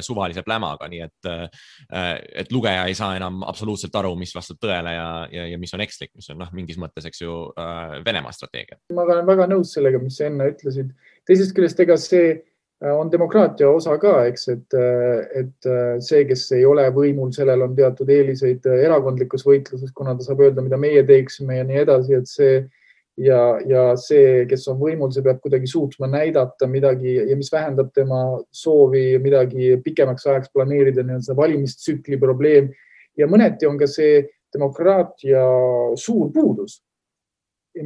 suvalise plämaga, nii et lugeja ei saa enam absoluutselt aru, mis vastab tõele ja mis on ekslik, mis on mingis mõttes, eks ju, Venemaa strateegia. Ma olen väga nõus sellega, mis sa enne ütlesid. Teisest küljest, ega see on demokraatia osa ka, eks, et see, kes ei ole võimul, sellel on teatud eeliseid erakondlikus võitluses, kuna ta saab öelda, mida meie teeksime ja nii edasi, et see ja see, kes on võimul, see peab kuidagi suutma näidata midagi ja mis vähendab tema soovi midagi pikemaks ajaks planeerida, nii on see valimistsükli probleem. Ja mõneti on ka see demokraatia suur puudus,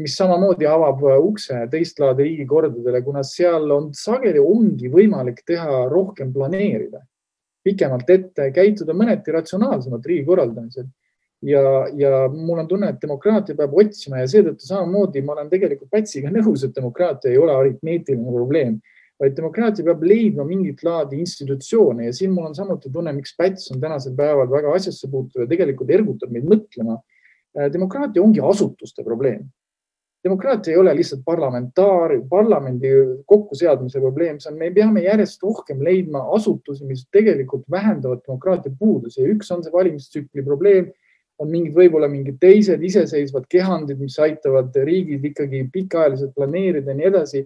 mis samamoodi avab ukse teistlaadi riigikordadele, kuna seal on sageli ongi võimalik teha rohkem planeerida, pikemalt ette käituda mõneti ratsionaalsemalt riigi korraldamisel. Ja mul on tunne, et demokraatia peab otsima ja seetõttu samamoodi ma olen tegelikult Pätsiga nõus, et demokraatia ei ole aritmeetiline probleem, vaid demokraatia peab leidma mingit laadi institutsioone ja siin mul on samuti tunne, miks Päts on tänasel päeval väga asjasse puutuv ja tegelikult ergutab meid mõtlema. Demokraatia ongi asutuste probleem. Demokraatia ei ole lihtsalt parlamendi kokkuseadmise probleem, me peame järjest rohkem leidma asutusi, mis tegelikult vähendavad demokraatia puudusi ja üks on see valimistsükli probleem, on võib-olla mingid teised iseseisvad kehandid, mis aitavad riigid ikkagi pikaajaliselt planeerida ja nii edasi.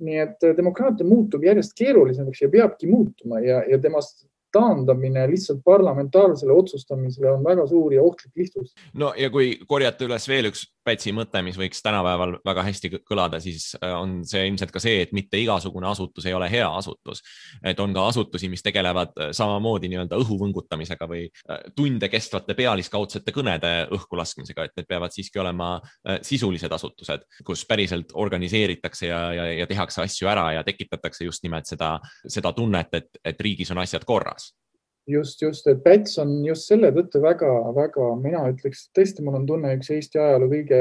Nii et demokraatia muutub järjest keerulisemaks ja peabki muutuma ja temast taandamine lihtsalt parlamentaarsele otsustamisele on väga suur ja ohtlik lihtsus. No ja kui korjata üles veel üks Pätsi mõte, mis võiks tänapäeval väga hästi kõlada, siis on see ilmselt ka see, et mitte igasugune asutus ei ole hea asutus. Et on ka asutusi, mis tegelevad samamoodi nii-öelda õhuvõngutamisega või tunde kestvate pealiskaudsete kõnede õhku laskmisega, et need peavad siiski olema sisulised asutused, kus päriselt organiseeritakse ja tehakse asju ära ja tekitatakse just nimelt seda tunnet, et riigis on asjad korras. Just, et Päts on just selle tõttu väga, mina ütleks, tõesti mul on tunne üks Eesti ajaloo kõige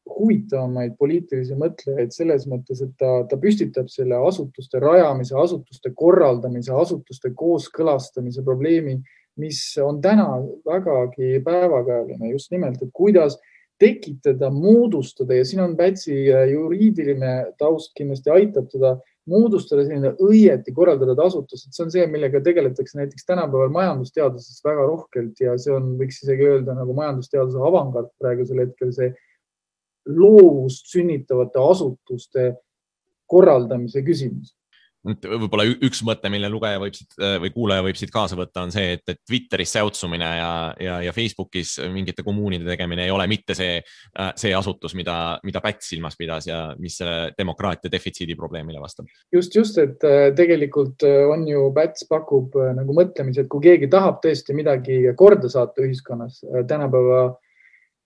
huvitavamaid poliitilisi mõtlejaid selles mõttes, et ta püstitab selle asutuste rajamise, asutuste korraldamise, asutuste kooskõlastamise probleemi, mis on täna vägagi päevakajaline just nimelt, et kuidas tekitada, moodustada ja siin on Pätsi juriidiline taust kindlasti aitab teda moodustada selline õieti korraldatud asutus, et see on see, millega tegeletakse näiteks tänapäeval majandusteaduses väga rohkelt ja see on, võiks isegi öelda nagu majandusteaduse avangard praegusel hetkel see loovust sünnitavate asutuste korraldamise küsimus. Võib-olla üks mõte, mille lugeja või kuulaja võib siit kaasa võtta, on see, et Twitteris säutsumine ja Facebookis mingite kommuunide tegemine ei ole mitte see asutus, mida Päts silmas pidas ja mis demokraatia defitsiidi probleemile vastab. Just, et tegelikult on ju Päts pakub nagu mõtlemise, et kui keegi tahab tõesti midagi korda saata ühiskonnas tänapäeva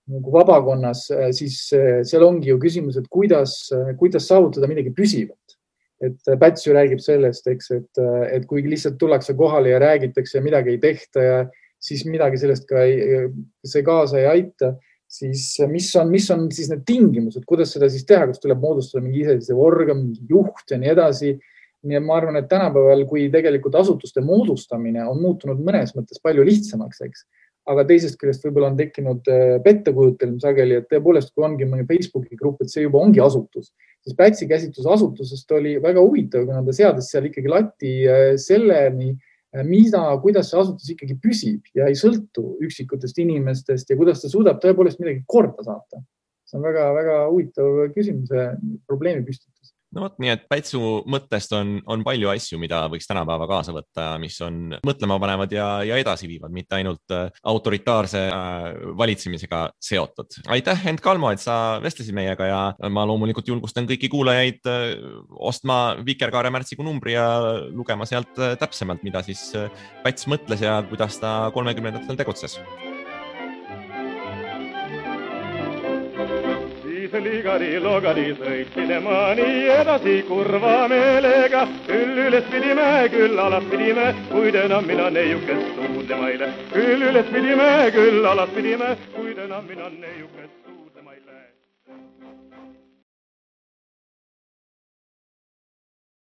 nagu vabakonnas, siis seal ongi ju küsimus, et kuidas saavutada midagi püsivat. Et Päts ju räägib sellest, eks, et kui lihtsalt tullakse kohale ja räägitakse ja midagi ei tehta ja siis midagi sellest ka see kaasa ei aita, siis mis on siis need tingimused, kuidas seda siis teha, kas tuleb moodustada mingi iseseisev organ, mingi juht ja nii edasi. Nii et ma arvan, et tänapäeval, kui tegelikult asutuste moodustamine on muutunud mõnes mõttes palju lihtsamaks, eks, aga teisest küljest võib-olla on tekkinud pettekujutelm sageli, et tõepoolest, kui ongi mõni Facebooki grupp, et see juba ongi asutus, siis Pätsi käsitlus asutusest oli väga huvitav, kuna ta seadis seal ikkagi lati selleni, kuidas see asutus ikkagi püsib ja ei sõltu üksikutest inimestest ja kuidas ta suudab tõepoolest midagi korda saata. See on väga, väga huvitav küsimuse probleemi püstitus. No võt, nii et Pätsu mõttest on palju asju, mida võiks tänapäeva kaasa võtta, mis on mõtlema panevad ja edasi viivad, mitte ainult autoritaarse valitsemisega seotud. Aitäh, Hent Kalmo, et sa vestlesid meiega ja ma loomulikult julgustan kõiki kuulajaid ostma Vikerkaare märtsikuu numbri ja lugema sealt täpsemalt, mida siis Päts mõtles ja kuidas ta 30-ndatel tegutses. Ligari-logari sõitsime nii edasi kurva meelega. Küll üles pidime, küll alas pidime, kuid enam mina neiukest suudlemaile. Küll üles pidime, küll alas pidime, kuid enam mina neiukest suudlemaile.